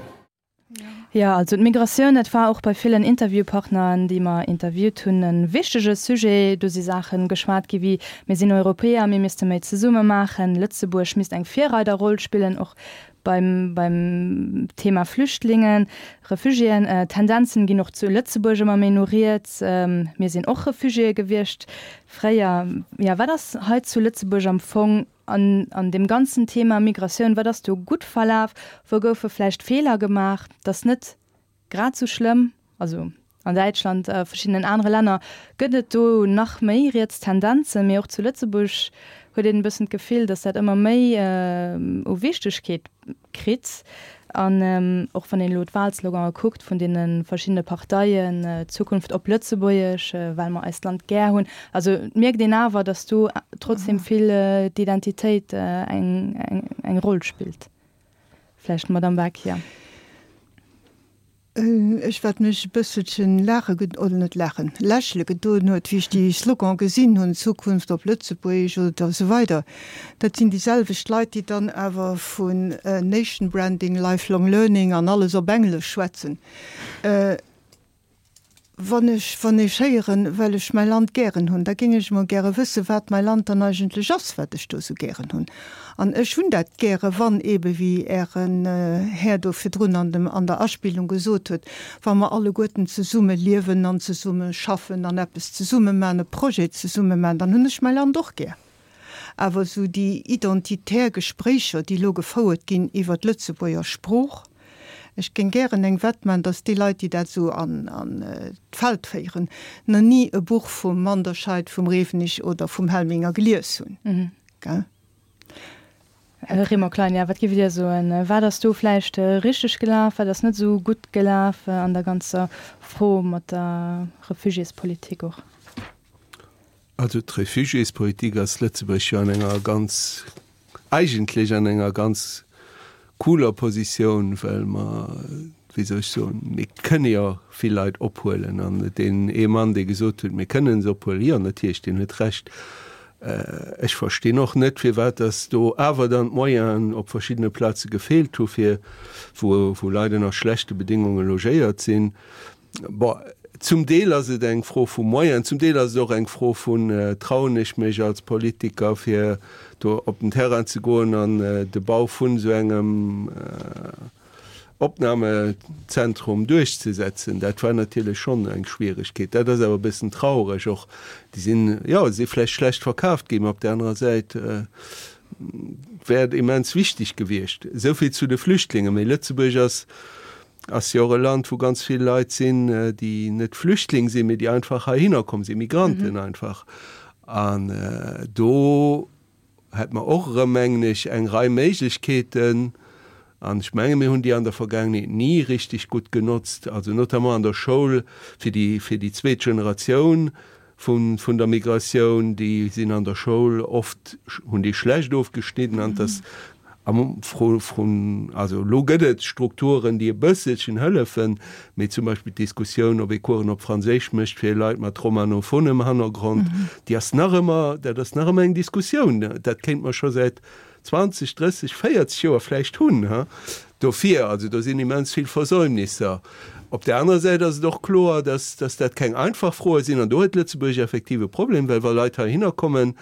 Jo, also d'Migratioun, dat war och bei villen Interviewpartneren, déi mer interviewt hunn, e wichtege Sujet. Do si Saache geschwat gi wéi, Mir sinn Europäer, mir misste méi zesumme maachen, Lëtzebuerg misst eng Virreiderroll spillen, och beim beim Thema Flüchtlingen, Refugiéen. Tendenzen ginn och zu Lëtzebuerg ëmmer méi no riets. Mir sinn och Refugiéë gewiescht fréier. Jo, wat ass hei zu Lëtzebuerg am Fong An an deem ganzen Thema Migratioun, wat ass do gutt verlaf, wou goufe vläicht Feeler gemaach? Dat ass net grad esou schlëmm, also an Däitschland a verschiddenen anere Länner gëtt et do nach méi riets Tendenzen, mee och zu Lëtzebuerg huet een e bëssen d'Gefill, datt dat ëmmer méi u Wichtegkeet kritt. An och wann een elo d'Wahlslogane kuckt vun deene verschiddene Parteien, Zukunft op Lëtzebuergesch, well mer eist Land gär hunn, also et mierkt een awer, datt do trotzdem vill d'Identitéit eng Roll spillt. Vläicht d'Madame Beck, jo. Ech, wat mech e bësselchen laache ge-, oder net laachen, lächele gedoen huet, wéi ech déi Slogan gesinn hunn, Zukunft op Lëtzebuergesch oder esou weider, dat sinn déi selwecht Leit, déi dann awer vun Nation Branding, Lifelong Learning an alles op Englesch schwätzen. Wann ech, wann ech héieren, well ech mäi Land gären hunn, da géing ech emol gäre wëssen, wat mäi Land dann eigentlech ass, wat ech do esou gären hunn. An ech hunn dat gäre wann eebe wéi Ären Här do virdrun an dem, an der Aspillung gesot huet, wa mer alleguerten zesumme liewen an zesumme schaffen an eppes zesumme maachen, e Projet zesumme maachen, dann hunn ech mäi Land och gär. Awer esou déi identitär Gespréicher, déi elo gefouert ginn iwwer d'Lëtzebuerger Sprooch, ech géing gären eng Wett maachen, datt déi Leit, déi dat esou an d'Feld féieren, nach ni e Buch vum Manderscheid, vum Rewenig oder vum Helminger gelies hunn. Gell? Här Raymond Klein, jo, wat géift Dir soen? Wat ass do vläicht richteg gelaf, wat ass net esou gutt gelaf an der ganzer Fro mat der Refugiéspolitik och? Also d'Refugiéspolitik ass Lëtzebuerg jo an enger ganz, eigentlech an enger ganz cooler Positioun, well mer, wéi soll ech soen, mir kënne jo vill Leit ophuelen. An deen ee Mann, dee gesot huet, mir kënnen se ophuelen, jo natierlech, deen huet Recht. Ech verstinn och net, firwat datt do awer dann d'Moyenen op verschiddene Plaze gefeelt hu fir, wou, wou Leit ënner schlechte Bedéngunge logéiert sinn. Bon, zum Deel ass et eng Fro vu Moyenen, zum Deel ass et och eng Fro vun, Trauen ech mech als Politiker, fir do op den Terrain ze goen an de Bau vun esou engem Opnamezentrum duerchzesetzen? Dat war natierlech schonn eng Schwieregkeet. Dat ass awer e bëssen traureg och. Déi sinn, jo, si vläicht schlecht verkaaft ginn, mä op där anerer Säit wär et immens wichteg gewiescht. Esou vill zu de Flüchtlingen. Mee Lëtzebuerg ass Ass jo och e Land, wou ganz vill Leit sinn, déi net Flüchtling sinn, mee déi einfach heihinner komm sinn, Migranten einfach. An do hätt mer och erëm, mengen ech, eng Rei Méiglechkeeten, an ech menge mir hunn déi an der Vergaangenheet ni richtig gutt genotzt, also notamment an der Schoul fir déi, fir déi zweet Generatioun, vun vun der Migratioun, déi sinn an der Schoul oft, hunn déi schlecht ofgeschnidden an dass am Fro vun, also elo gëtt et Strukturen, déi e bësselchen hëllefen, mee zum Beispill d'Diskussioun, ob ee Coursen op Franséisch mécht fir Leit mat romanophonem Hannergrond, déi ass nach ëmmer, dat ass nach ëmmer eng Diskussioun. Dat kéint mer scho säit 20, 30, 40 Joer vläicht hunn. Dofir, also do sinn immens vill Versäumnisser. Op där anerer Säit ass et och kloer, dass, dass dat keng einfach Froe sinn. An do huet Lëtzebuerg effektiv e Problem, well wa Leit heihinner kommen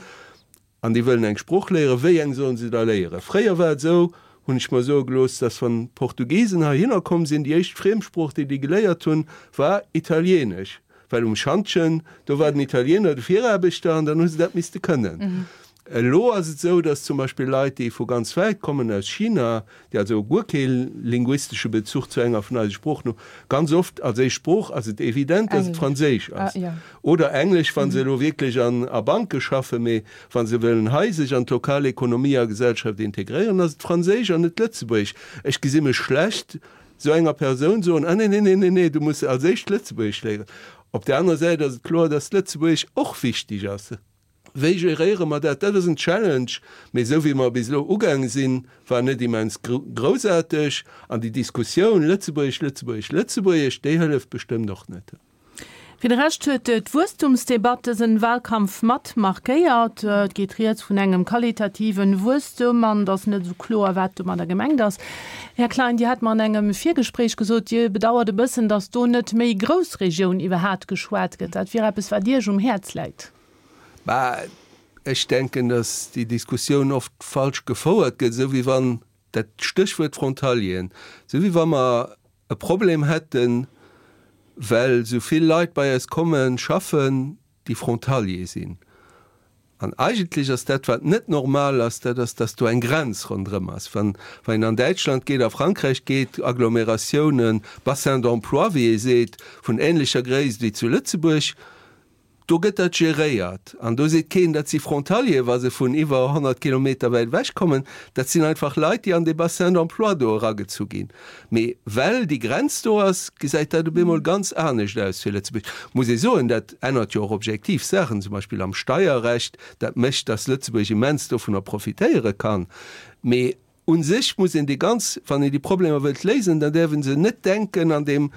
an déi wëllen eng Sprooch léieren, wéi eng sollen se da léieren? Fréier war et esou, hunn ech mer soe gelooss, dass wann d'Portugisen heihinner komm sinn, déi éischt Friemsprooch, déi déi geléiert hunn, war Italienesch. Well um Schantjen, do war den Italiener de Viraarbechter an dann hu se dat misste kënnen. Elo ass et esou, datt zum Beispill Leit, déi vu ganz wäit kommen, aus China, déi also guer kee linguistesche Bezuch zu enger vun eise Sproochen hunn, ganz oft als éischt Sprooch ass et evident, datt et Franséisch ass oder Englesch, wa se elo wierklech an a Banke schaffen. Mee wa se wëllen hei sech an d'lokal Ekonomie a Gesellschaft integréieren, ass et Franséisch an net Lëtzebuergesch. Ech gesi mech schlecht esou enger Persoun soen, Ah nee, nee, nee, nee, nee, du muss als éischt Lëtzebuergesch léieren. Op där anerer Säit ass et kloer, datt Lëtzebuergesch och wichteg ass. Wéi geréiere mer dat? Dat ass en Challenge, mee esou wéi mer bis elo ugaange sinn, war net immens groussaarteg. An déi Diskussioun Lëtzebuergesch, Lëtzebuergesch, Lëtzebuergesch, déi hëlleft bestëmmt och net. Fir de Rescht huet d'Wuesstumsdebatt dësen Wahlkampf mat markéiert. Et geet rieds vun engem qualitativen Wuesstum an et ass net esou kloer, wat domadder gemengt ass. Här Klein, Dir hat mer an engem Virgespréich gesot, Dir bedauert e bëssen, datt do net méi Groussregioun iwwerhaat geschwat gëtt. Dat wier eppes, wat Iech um Häerz läit. Bah, ech denken, datt déi Diskussioun oft falsch gefouert gëtt, esou wéi wann, dat Stéchwuert Frontalieren, esou wéi wa mer e Problem hätten, well esou vill Leit bei eis komme schaffen, déi Frontalier sinn. An eigentlech ass dat, wat net normal ass, dat ass, datt do eng Grenz ronderëm ass. Wann, wann een an Däitschland geet, a Frankräich geet, Agglomeratiounen, Bassins d'emploi, wéi ee seet, vun ähnlecher Gréisst wéi zu Lëtzebuerg, Do gëtt dat geréiert an do seet keen, dat si Frontalieren, wa se vun iwwer 100 Kilometer wäit ewech kommen. Dat sinn einfach Leit, déi an dee Bassin d'emploi do eragezu ginn. Mee well déi Grenz do ass, gesäit dat op eemol ganz anescht aus fir Lëtzebuerg. Muss ee soen, dat ännert jo och objektiv Saachen, zum Beispill am Steierrecht. Dat mécht, datt Lëtzebuerg immens dovunner profitéiere kann. Mee u sech muss een déi ganz, wann een déi Problemer wëllt léisen, dann däerf ee se net denken an deem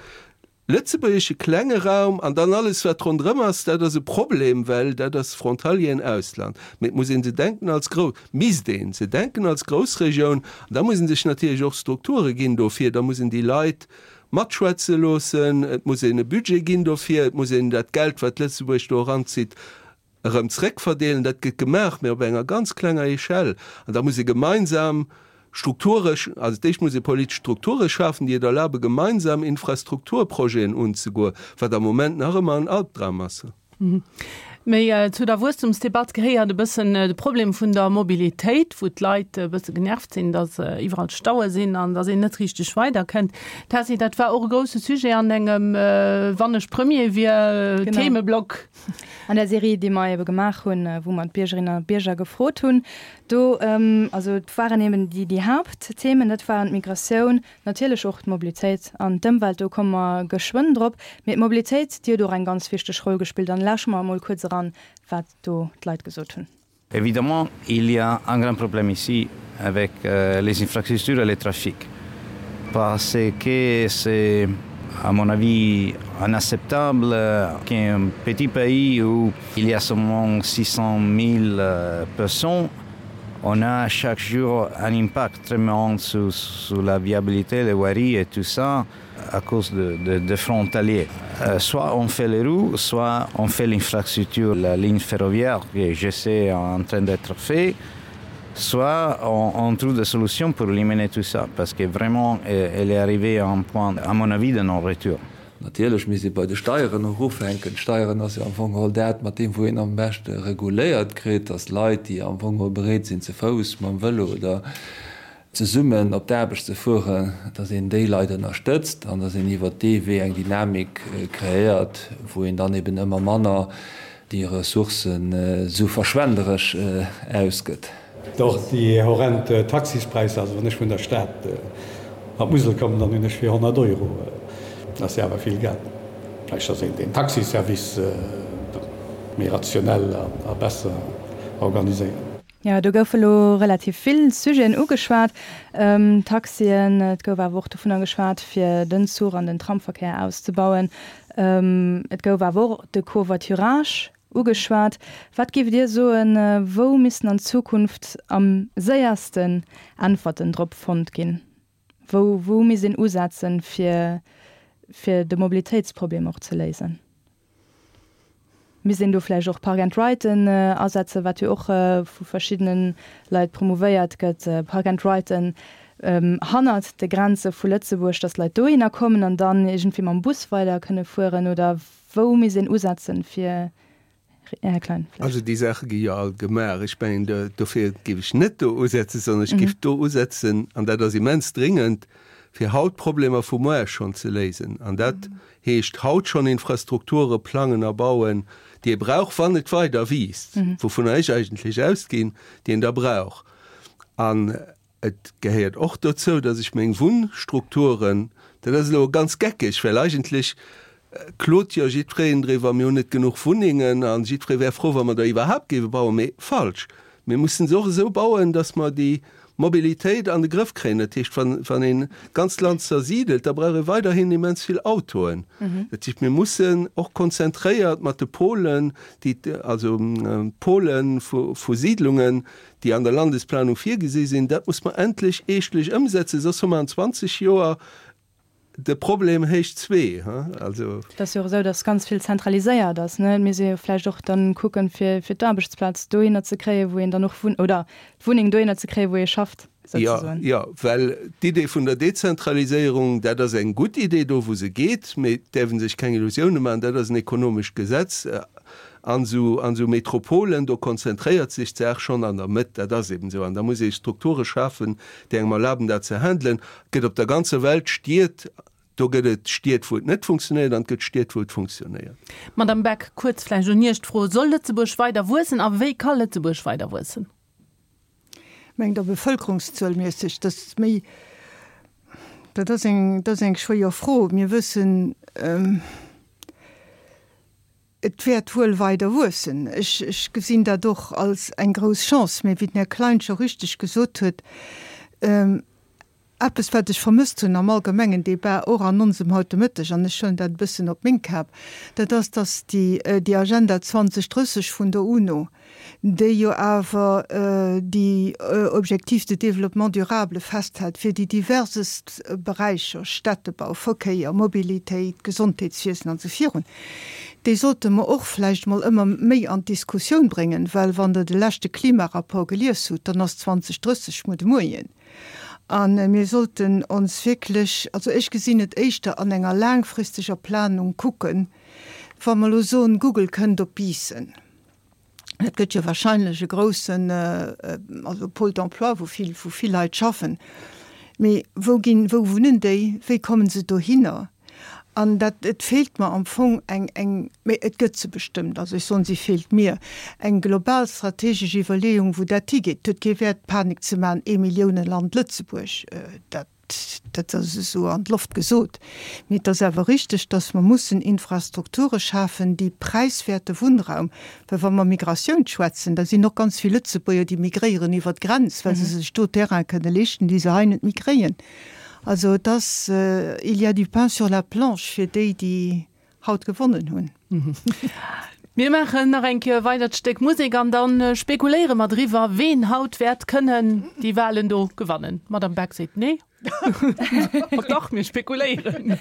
Lëtzebuergesche klenge Raum an dann alles wat ronderëm ass, dat ass e Problem, well dat ass Frontalieren, Ausland. Mee et muss ee se denken als Grou, misst ee se denken als Groussregioun an da muss ee sech natierlech och Strukture ginn dofir, da muss een déi Leit matschwätze loossen, et muss een e Budget ginn dofir, et muss een dat Geld wat Lëtzebuerg do eranzitt, erëm zréckverdeelen. Dat gëtt gemaach, mä op enger ganz klenger Echelle. An da muss ee gemeinsam Strukture, also d'éischt muss ee politesch Strukture schafen, déi et erlabe gemeinsam Infrastrukturprojeten unzegoen, wat am Moment nach ëmmer en Albdram ass. Méi zu der Wuesstumsdebatt gehéiert e bëssen de Problem vun der Mobilitéit, wou d'Leit e bësse genervt sinn, datt iwwerall Staue sinn an datt een net richteg weiderkënnt. Tessy, dat war och e grousse Sujet an engem Wann ech Premier wier Themeblock. An der Serie, déi mer ebe gemaach hunn, wou mer d'Biergerinnen a Bierger gefrot hunn, do, also et waren eben déi, déi Haaptthemen, dat waren d'Migratioun, natierlech och d'Mobilitéit an d'Ëmwelt, do komme mer geschwënn drop. Mee d'Mobilitéit, déi huet och eng ganz wichteg Roll gespillt. An lausche mer emol kuerz eran, wat do d'Leit gesot hunn. Évidemment, il y a un grand problème ici avec euh, les infrastructures et les trafics parce que c'est à mon avis inacceptable qu'un petit pays où il y a seulement 600 000 euh, personnes on a chaque jour un impact très grand sur, sur la viabilité des voiries et tout ça à cause de, de, de frontaliers. Euh, soit on fait les roues, soit on fait l'infrastructure, la ligne ferroviaire que je sais en train d'être fait, soit on, on trouve des solutions pour éliminer tout ça parce que vraiment euh, elle est arrivée à un point à mon avis de non-retour. Natierlech misst ee bei de Steieren och ufänken. D'Steieren ass jo am Fong geholl dat, mat deem wou een am beschte reguléiert kritt, datt Leit, déi am Fong geholl bereet sinn ze Fouss, mam Vëlo oder zesummen op d'Aarbecht ze fueren, datt een déi Leit ënnerstëtzt an datt een iwwert dee Wee eng Dynamik kreéiert, wou een dann eben ëmmer manner déi Ressourcen esou verschwenderesch ausgëtt. Och déi horrend Taxispräisser, also wann ech vun der Stad an d'Musel kommen, dann hunn ech fir 100 Euro, dat ass jo awer vill Geld. Vläicht ass een den Taxiservice méi rationell a besser organiséieren. Jo, do goufe lo relativ vill Sujeten ugeschwat, Taxien, et gouf awer och dovunner geschwat, fir den Zuch an den Tramverkéier auszebauen. Et gouf awer och de Covoiturage ugeschwat. Wat géift Dir soen, wou missten an Zukunft am séiersten Äntwerten drop fonnt ginn? Wou, wou misst een usetzen, fir, fir de Mobilitéitsproblem och ze léisen? Misst een do vläicht och Park and Riden asetzen, wat jo och vu verschiddene Leit promouvéiert gëtt, Park and Riden hannert de Grenze vu Lëtzebuerg, datt d'Leit dohinner kommen an dann iergendwéi mam Bus weider kënne fueren? Oder. Wou misst een usetzen, fir Här Klein, vläicht. Also déi Saache gi jo all gemaach. Ech mengen, dofir géif ech net do usetzen, sondern ech géif do usetzen, an dat ass immens dringend, fir haut d'Problemer vu muar schonn ze léisen. An dat heescht haut schonn Infrastrukture plangen a bauen, déi ee brauch, wann et weider wiisst, wouvunner ech eigentlech ausginn, déi een da brauch. An Et gehéiert och dozou, dass ech meng Wunnstrukturen, dat ass elo ganz geckeg, well eigentlech klot jo jiddwereen driwwer, mir hunn net genuch Wunnengen a jiddweree wär frou, wa mer der iwwerhaapt géife bauen, mee falsch. Mir mussen se och esou bauen, dass mer déi Mobilitéit an de Grëff kréien. Dat heescht, wann, wann een d'ganzt Land zersidelt, da brauch ee weiderhin immens vill Autoen. Dat heescht, mir mussen och konzentréiert mat de Polen, déi, also Pole vu, vu Siidlungen, déi an der Landesplanung virgesi sinn, dat muss mer endlech eeschtlech ëmsetzen, soss hu mer an 20 Joer de Problem héich zwee. Also. Et ass jo och esou, datt ganz vill zentraliséiert ass, ne? Et misst ee jo vläicht och dann kucken, fir, fir d'Aarbechtsplaz dohinner ze kréien, wou een dann och wunnt, oder d'Wunneng dohinner ze kréien, wou ee schafft, souzesoen. Jo, jo, well d'Idee vun der Dezentraliséierung, dat ass eng gutt Idee do, wou se geet, mee et däerf ee sech keng Illusioune maachen, dat ass en ekonomescht Gesetz. An esou, an esou Metropolen, do konzentréiert sech d'Saach schonn an der Mëtt, dat ass eben esou. An da muss ee Strukture schafen, déi engem erlaben, dat ze handelen. Et gëtt op der ganzer Welt Stied, do gëtt et Stied, wou et net funktionéiert, an et gëtt Stied, wou et funktionéiert. Madame Beck, kuerz vläicht un Iech d'Fro, Soll Lëtzebuerg weider wuessen a wéi ka Lëtzebuerg weider wuessen? Mengt Der bevëlkerungszuelmässeg? Dat ass méi, dat ass eng, dat ass eng schwéier Fro. Mir wëssen, Et wäert wuel weider wuessen. Ech gesinn dat och als eng grouss Chance. Mee wéi den Här Klein scho richteg gesot huet, eppes wat ech vermësst hunn am allgemengen Débat, och an onsem haut de Mëtteg, an ech huelen dat e bëssen op meng Kap, dat ass, datt déi Agenda 2030 vun der UNO, déi jo awer déi Objectifs de développement durable festhält fir déi diversest Beräicher, Städtebau, Verkéier, Mobilitéit, Gesondheetswiesen an esou virun, déi sollte mer och vläicht emol ëmmer méi an d'Diskussioun bréngen, well wann Der de leschte Klimarapport gelies hutt, dann ass 2030 muer de Moien. A mir sollten ons wierklech, also ech gesinn et éischter an enger laangfristeger Planung kucken, wa mer elo soen, Google kënnt op Biissen, Dat gëtt jo wahrscheinlech e groussen, also Pôle d'emploi, wou vill, wou vill Leit schaffen. Mee wou ginn, wou wunnen déi? Wéi kommen se dohinner? An dat, et feelt mer am Fong eng, eng, mee et gëtt se bestëmmt, also ech soen, si feelt mir, eng global strategesch Iwwerleeung, wou dat higeet. Et huet kee Wäert, Panik ze maachen, Eemilliouneland Lëtzebuerg, dat. Dat ass esou an d'Loft gesot. Mee et ass awer richteg, dass mer mussen Infrastrukture schafen, déi präiswäerte Wunnraum, well wa mer Migratioun schwätzen, da sinn och ganz vill Lëtzebuerger, déi migréieren iwwer d'Grenz, well se sech do Terrain kënne leeschten, déi se hei net méi kréien. Also et ass, il y a du pain sur la planche fir déi, déi haut gewonnen hunn. Mir maachen nach eng Kéier weidert Stéck Musek an dann spekuléiere mer driwwer, ween haut wäert kënnen déi Walen do gewannen. D'Madame Beck seet nee. Ma dach, mir spekuléieren.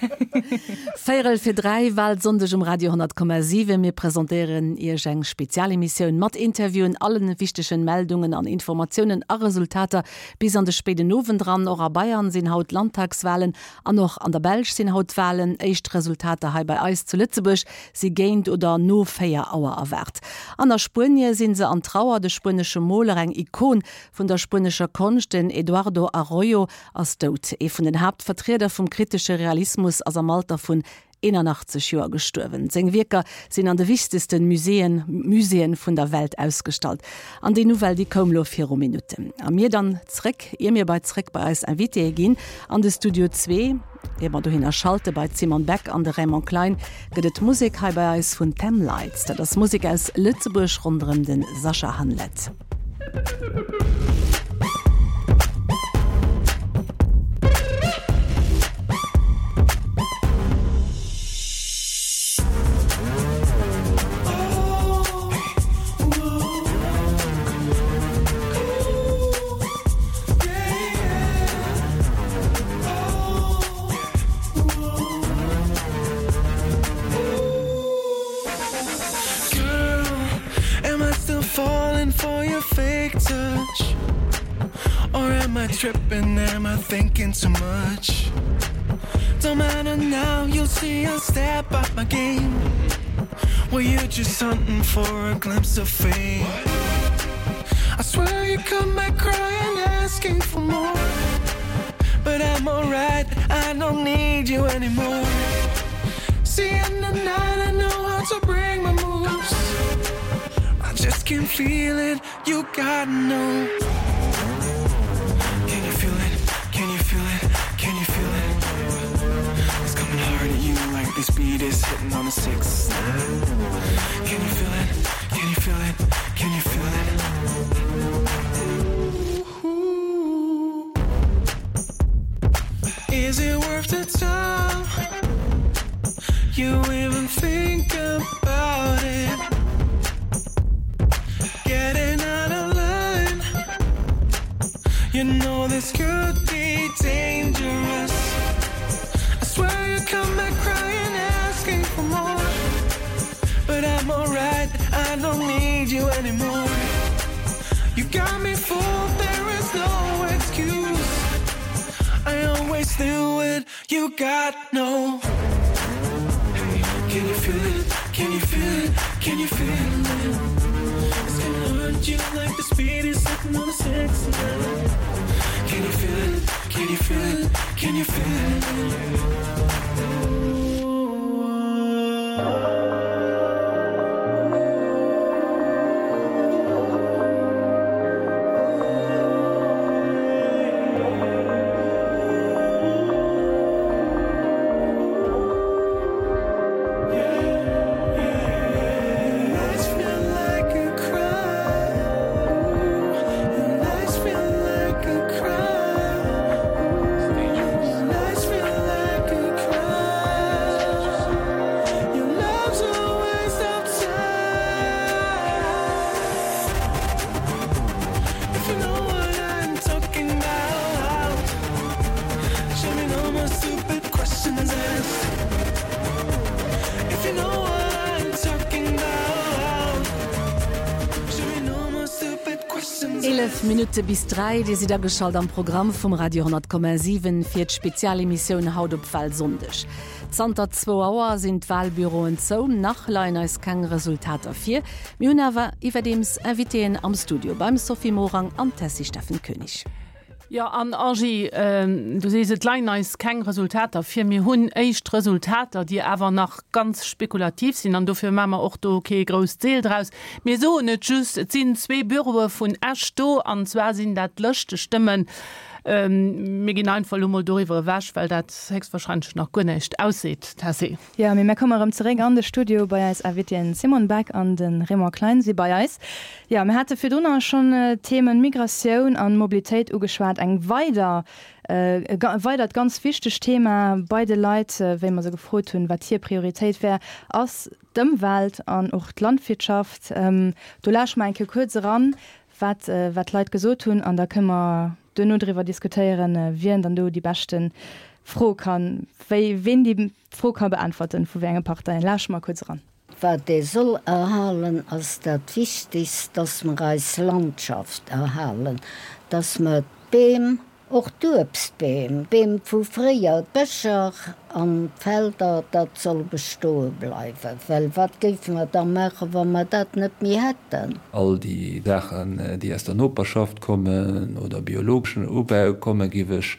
Véierel fir 3, Walsonndeg um Radio 100,7. Mir presentéieren Iech eng Spezialemissioun mat Interviewen, allen wichtegen Meldungen an Informatiounen a Resultater bis an de spéiden Owend eran. Och a Bayern sinn haut Landtagswalen An och an der Belsch sinn haut Walen. Éischt Resultater hei bei eis zu Lëtzebuerg si géint oder no 4 Auer erwaart. An a Spuenie si se an Trauer. De spuenesche Moler, eng Ikon vun der spuenescher Konscht, den Eduardo Arroyo, ass dout. Ee vun den Haaptvertrieder vum kritesche Realismus ass am Alter vun 81 Joer gestuerwen. Seng Wierker sinn an de wichtegste Muséeën Muséeën vun der Welt ausgestallt. An déi Nouvelle, déi koum lo viru Minutten. A mir dann zréck, ier mir bei zréck bei eis Invitéë ginn an de Studio zwee, ier mer dohinner schalte bei d'Simone Beck an de Raymond Klein, gëtt et Musek hei bei eis vun Them Lights. Dat ass Musek aus Lëtzebuerg ronderëm de Sascha Hanlet. Falling for your fake touch? Or am I tripping? Am I thinking too much? Don't matter now, you'll see I'll step up my game. Well, you're just hunting for a glimpse of fame. I swear you come back crying, asking for more. But I'm alright, I don't need you anymore. See, in the night, I know how to bring my moves. I just can't feel it, you gotta know. Can you feel it? Can you feel it? Can you feel it? It's coming hard at you like this beat is hitting on a 6. Can you feel it? Can you feel it? Can you feel it? Ooh. Is it worth the time? You even think about it? Getting out of line. You know this could be dangerous. I swear you come back crying, asking for more. But I'm alright, I don't need you anymore. You got me fooled, there is no excuse. I always knew it, you got no. Hey, can you feel it? Can you feel it? Can you feel it? It's gonna hurt you like the speed is sitting on a 69. Can you feel it? Can you feel it? Can you feel it? 11 Minutte bis 3, Dir sidd ageschalt am Programm vum Radio 10,7 fir d'Spezialemissioun haut op Walsonndeg. Zanter zwou Auer sinn d'Walbüroen zou. Nach leien eis keng Resultater vir. Mir hunn awer iwwerdeems Invitéen am Studio beim Sophie Morang an Tessy Steffen Koenig. Jo, an Angie, du sees, et leien eis keng Resultater vir. Mir hunn éischt Resultater, déi awer nach ganz spekulativ sinn, an dofir maache mer och do kee grousst Seel draus. Mir soen et just, et sinn zwee Büroe vun Esch do, an zwar sinn dat Lëschtestëmmen. Mir ginn einfach elo mol doriwwer ewech, well dat héchstwahrscheinlech nach guer näischt ausseet. Tessy. Jo, mee mär komme erëm zeréck an de Studio bei eis Invitéen Simone Beck an de Raymond Klein si bei eis. Jo, mir hate virdrunner schonn d'Themen Migratioun an Mobilitéit ugeschwat. Eng weider, e weidert ganz wichtegt Thema bei de Leit, wéi mer se gefrot hunn, wat hir Prioritéit wär, ass d'Ëmwelt an och d'Landwirtschaft. Do lauschte mer eng Kéier kuerz eran, wat wat d'Leit gesot hunn an da kënne mer duerno driwwer diskutéieren, wien dann do déi beschte Fro kann, wéi ween déi Fro ka beäntwerten, vu wéi enge Parteien. Lauschte mer kuerz eran. Wat ee soll erhalen, ass dat Wichtigst, dass mer eis Landschaft erhalen, dass mer d'Beem, Och d'Uebstbeem, Beem vu fréier, d'Bëscher an d'Felder, dat soll bestoe bleiwen, well wat géife mer da maachen, wa mer dat net méi hätten? All déi Saachen, déi aus der Noperschaft kommen oder biologeschen Ubau kommen, géif ech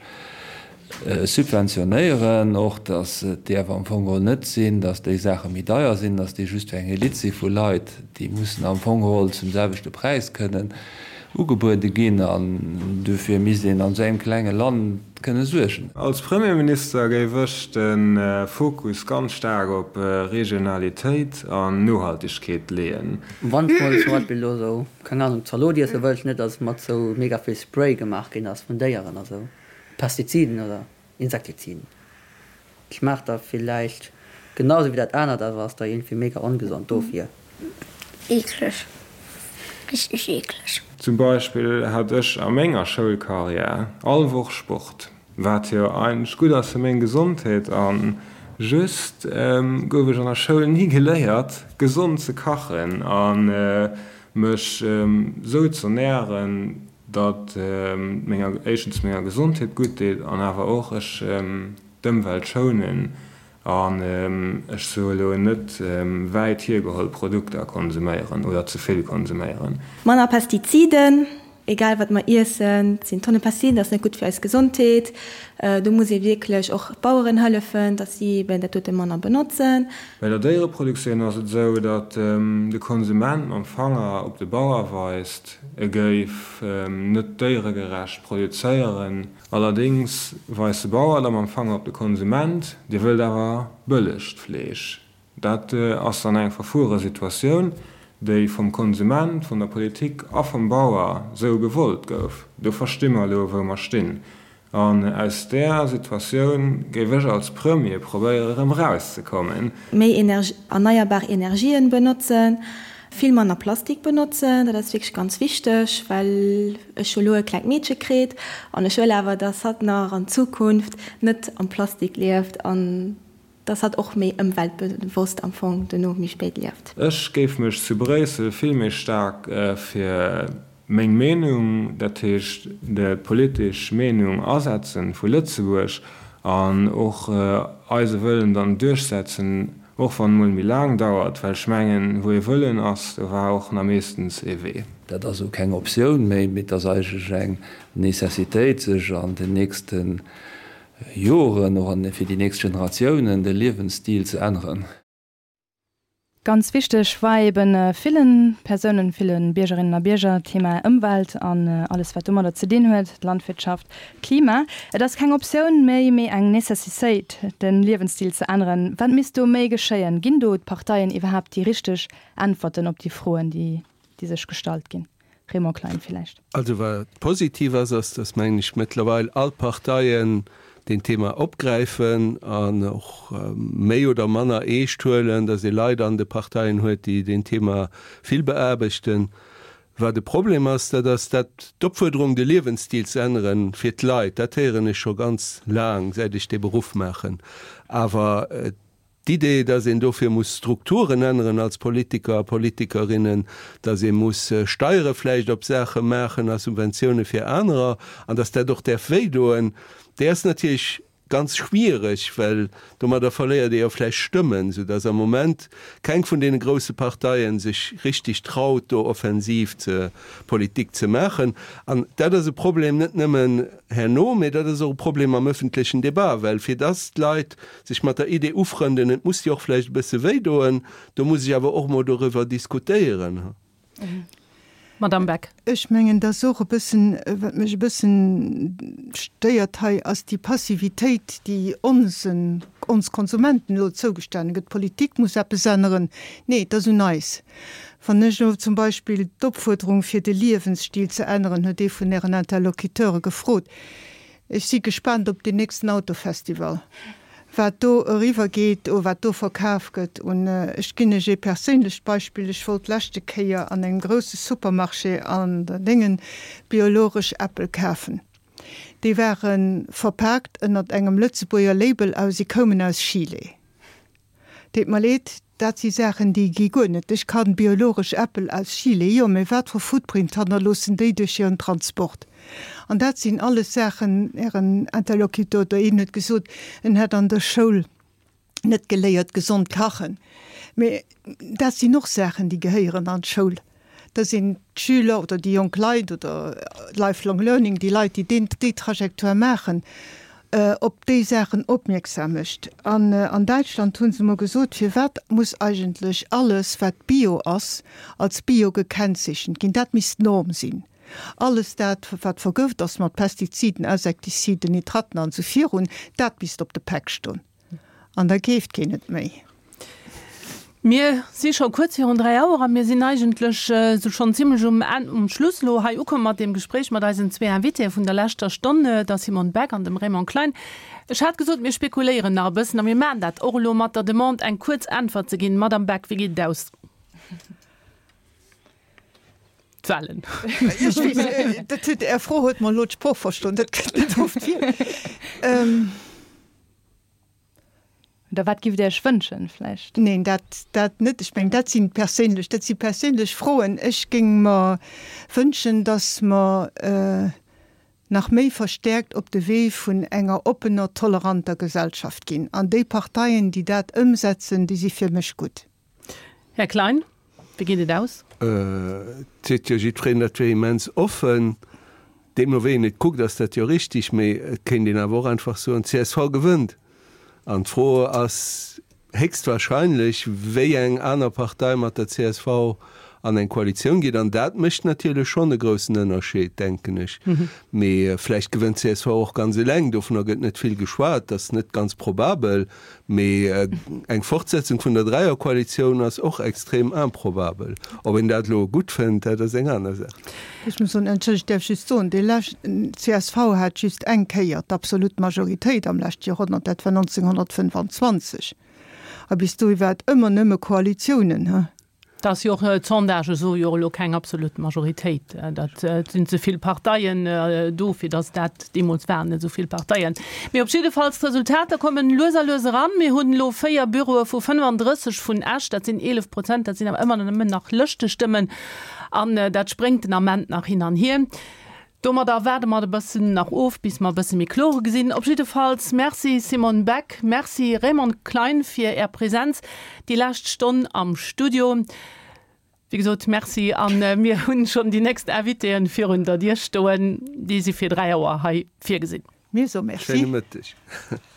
subventionéieren. Och datt et däerf am Fong geholl net sinn, datt déi Saache méi deier sinn, datt déi just fir eng Elite si vu Leit, déi mussen am Fong geholl zum selwechte Präis kënnen ugebuede ginn an dofir misst een an esou engem klenge Land kënne suergen. Als Premierminister géif ech de Fokus ganz staark op Regionalitéit an Nohaltegkeet leeën. Wann s mol zum Beispill elo sou, keng Ahnung, Zalot iesse wëlls, net dass et mat sou mega vill Spray gemaach ginn ass vun Déieren a sou Pestiziden oder Insektiziden. Schmaacht da villäicht genau sou wéi dat anert, awer ass da iergendwéi mega ongesond dofir. Eekleg. Richteg eekleg. Zum Beispill hat ech a menger Schoulkarriär all Woch Sport, wat jo eigentlech gutt ass fir meng Gesondheet, a just gouf ech an der Schoul ni geléiert gesond ze kachen a mech sou z'ernären, datt menger éischtens menger Gesondheet gutt deet an awer och ech d'Ëmwelt schounen. An ech soe lo net wäit hiergeholl Produkter konsuméieren oder ze vill konsuméieren. Manner Pestiziden, egal wat mer iessen, et sinn Tonne Pestiziden, dat ass net gutt fir eis Gesondheet. Do muss ee wierklech och d'Baueren hëllefen, datt si eben dat dote manner benotzen. Bei der Déiereproduktioun ass et esou, datt de Konsument mam Fanger op de Bauer weist, e géif net déieregerecht produzéieren. Allerdéngs weist de Bauer da mam Fanger op de Konsument, dee wëllt awer bëllegt Fleesch. Dat ass dann eng verfuere Situatioun, déi vum Konsument, vun der Politik a vum Bauer sou gewollt gouf. Do versti mer elo, wou mer stinn. An aus där Situatioun géif ech als Premier probéiere erëm erauszekommen. Méi erneierbar Energien benotzen, vill manner Plastik benotzen, dat ass wierklech ganz wichteg, well ech hu lo e klengt Meedche kritt an ech wëll awer, dass hatt nach an Zukunft net am Plastik lieft an dass hatt och méi ëmweltbewosst am Fong dono méi spéit lieft. Ech géif mech zu Bréissel vill méi staark fir meng Meenung, dat heescht d'politesch Meenung asetzen vu Lëtzebuerg an och eise Wëllen dann duerchsetzen, och wann et mol méi laang dauert, well ech mengen, wou ee Wëllen ass, do war och na meeschtens ee Wee. Dat ass elo keng Optioun méi, mee et ass eigentlech eng Necessitéit, sech an den nächste Joren, och fir déi nächst Generatiounen, de Liewensstil ze änneren. Ganz wichteg war eben villen Persounen, ville Biergerinnen a Bierger d'Thema Ëmwelt an alles wat domadder ze dinn huet, d'Landwirtschaft, d'Klima. Et ass keng Optioun méi, mee eng Necessitéit de Liewensstil ze änneren. Wat misst do méi geschéien? Ginn do d'Parteien iwwerhaapt déi richteg Äntwerten op déi Froen, déi sech gestallt ginn? Raymond Klein villäicht. Also wat positiv ass, ass, datt, mengen ech, mëttlerweil all d'Parteien deen Thema opgräifen an och méi oder manner eescht huelen, datt ee Leit an de Parteien huet, déi deen Thema vill beaarbechten. Wat e Problem ass, dat ass dat d'Opfuerderung, de Liewensstil ze änneren fir d'Leit, dat héieren ech scho ganz laang, säit ech dee Beruff maachen. Awer D'Idee, dass een dofir muss Strukturen änneren als Politiker a Politikerinnen, dass ee muss Steiere vläicht op Saache maachen a Subventioune fir anerer an dass dat och däerf wéidoen, déi ass natierlech ganz schwiereg, well domadder verléiert ee jo vläicht Stëmmen, soudass am Moment keng vun deene grousse Parteie sech richtig traut, do offensiv ze Politik ze maachen. An dat ass e Problem net nëmmen herno, mee dat ass och e Problem am öffentlechen Débat, well fir dass d'Leit Sech mat der Idee ufrënden, et muss jo och vläicht e bësse wéi doen, do muss ech awer och mol doriwwer diskutéieren. Madame Beck. Ech mengen, dass och e bëssen, wat mech e bëssen stéiert hei, ass déi Passivitéit, déi onsen, ons Konsumenten elo zougestane gëtt. D'Politik muss eppes änneren. Nee, et ass un eis. Wann ech elo zum Beispill d'Opfuerderung fir de Liewensstil ze änneren, huet ee vun Ären Interlocuteure gefrot, Ech si gespaant op deen nächsten Autofestival, wat do eriwwer geet o wat do verkaf gëtt. Un ech ginn Iech ee perséinlecht Beispill, Ech wollt d'leschte Kéier an engem grousse Supermarché an der Déngen biologesch Äppel kafen. Déi ware verpaakt ënnert engem Lëtzebuerger Label a si koumen aus Chile. Deet mer leed, dat si Saachen, déi gi guer net. Ech kann biologesch Äppel aus Chile, jo, mä wat fir Footprint hannerloossen déi duerch hiren Transport? An dat sinn alles Saachen, Ären Interlocuteur oder een huet gesot, en hätt an der Schoul net geléiert gesond kachen, mä dat sinn och Saachen, déi gehéieren an d'Schoul. Da sinn d'Schüler oder déi jonk Leit oder Lifelong Learning, déi Leit, déi deen, déi Trajectoire maachen, op déi Saachen opmierksam mécht. An an Däitschland hu se emol gesot, Firwat muss eigentlech alles, wat Bio ass, als Bio gekennzeechent ginn? Dat misst d'Norm sinn. Alles dat, wat vergëft ass mat Pestiziden, Insektiziden, Nitraten an esou virun, dat misst op de Päck stoen. An da keeft keen et méi. Mir si scho kuerz virun 3 Auer a mir sinn eigentlech esou schonn zimlech um Enn, um Schluss elo hei ukomm mat deem Gespréich mat eisen zwee Invitéë vun der leschter Stonn, der Simone Beck an dem Raymond Klein. Ech hat gesot, mir spekuléieren nach e bëssen a mir maachen dat och elo mat der Demande, eng kuerz Äntwert ze ginn. Madamm Beck, wéi geet et aus? D'Wahlen. Ech weess, dat huet, Är Fro huet mer elo d'Sprooch verstoen, dat kënnt net oft vir. Oder wat giff Dir Iech wënschen vläicht? Neen, dat, dat net. Ech mengen, dat si perséinlech, dat si perséinlech Froen. Ech géing mer wënschen, datt mer. nach méi verstäerkt op de Wee vun enger oppener, toleranter Gesellschaft ginn. An déi Parteien, déi dat ëmsetzen, déi si fir mech gutt. Här Klein, wéi geet et aus? Et seet jo jiddwereen, dat wier immens offen. Deemno wéi een et kuckt, ass dat jo richtig, mee et kéint een awer och einfach soen, csv gewënnt. An d'Fro ass héchstwahrscheinlech, wéi eng aner Partei mat der csv an eng Koalitioun geet. An dat mécht natierlech schonn e groussen Ënnerscheed, denken ech. Mee vläicht gewënnt csv och ganz eleng. Dovunner gëtt net vill geschwat, dat ass net ganz probabel. Mee eng Fortsetzung vun der Dräierkoalitioun ass och extrem improbabel. Ob een dat elo gutt fënnt, dat ass eng aner Saach. Ech muss soen, entschëllegt, ech däerf just soen, dee leschten, csv hat just eng Kéier d'absolut Majoritéit am leschte Joerhonnert, dat war 1925. A bis dohi war et ëmmer nëmme Koalitiounen, he. Dat ass jo och, d'Sondagë soe jo och elo keng absolut Majoritéit. Dat sinn ze vill Parteien do, fir datt dat, deemools waren net esou vill Parteien. Mee op jiddefalls, d'Resultater kommen lues a lues eran. Mir hunn elo 4 Büroe vu 35 vun Esch, dat sinn 11 Prozent, dat sinn awer ëmmer nëmmen nach Lëschtestëmmen. An dat spréngt den Ament nach hin an hier. Domadder waarde mer e bëssen nach of, bis mer e bësse méi kloer gesinn. Op jiddefalls Merci Simone Beck, Merci Raymond Klein fir Är Präsenz déi lescht Stonn am Studio. Wéi gesot, Merci a mir hunn schonn déi nächst Invitéen virun der Dier stoen. Déi si fir 3 Auer hei virgesinn. Mir soe Merci. Schéine Mëtteg.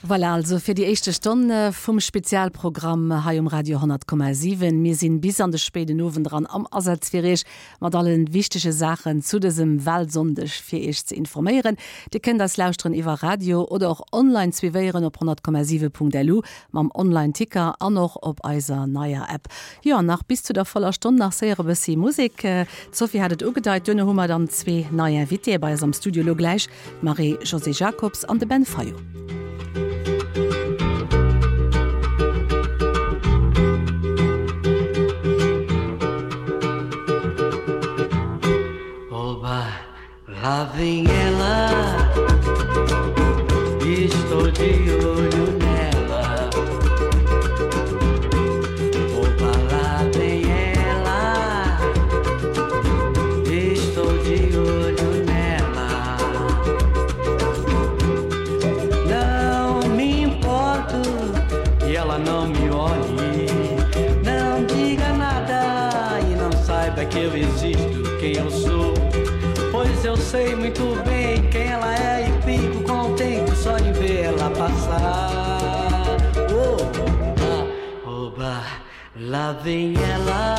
Voilà also fir déi éischte Stonn vum Spezialprogramm hei um Radio 100,7. Mir sinn bis an de spéiden Owend eran am Asaz fir Iech mat allen wichtege Saachen zu dësem Wahlsonndeg fir Iech ze informéieren. Dir kënnt eis lauschteren iwwer Radio oder och online suivéieren op 100,7.lu mam Online Ticker an och op eiser neier App. Jo an nach bis zu der voller Stonn nach séier e bëssi Musek. D'Sophie hat et ugedeit, duerno hu mer dann zwee nei Invitéë bei eis am Studio elo gläich. D'Marie-Josée Jacobs an de Ben Fayot. Oba, lá vem ela Estou de olho nela Oba, lá vem ela Estou de olho nela Não me importo que ela não me olhe Não diga nada e não saiba que eu existo, quem eu sou Pois eu sei muito bem quem ela é e fico contente só de ver ela passar Oba, oba, lá vem ela.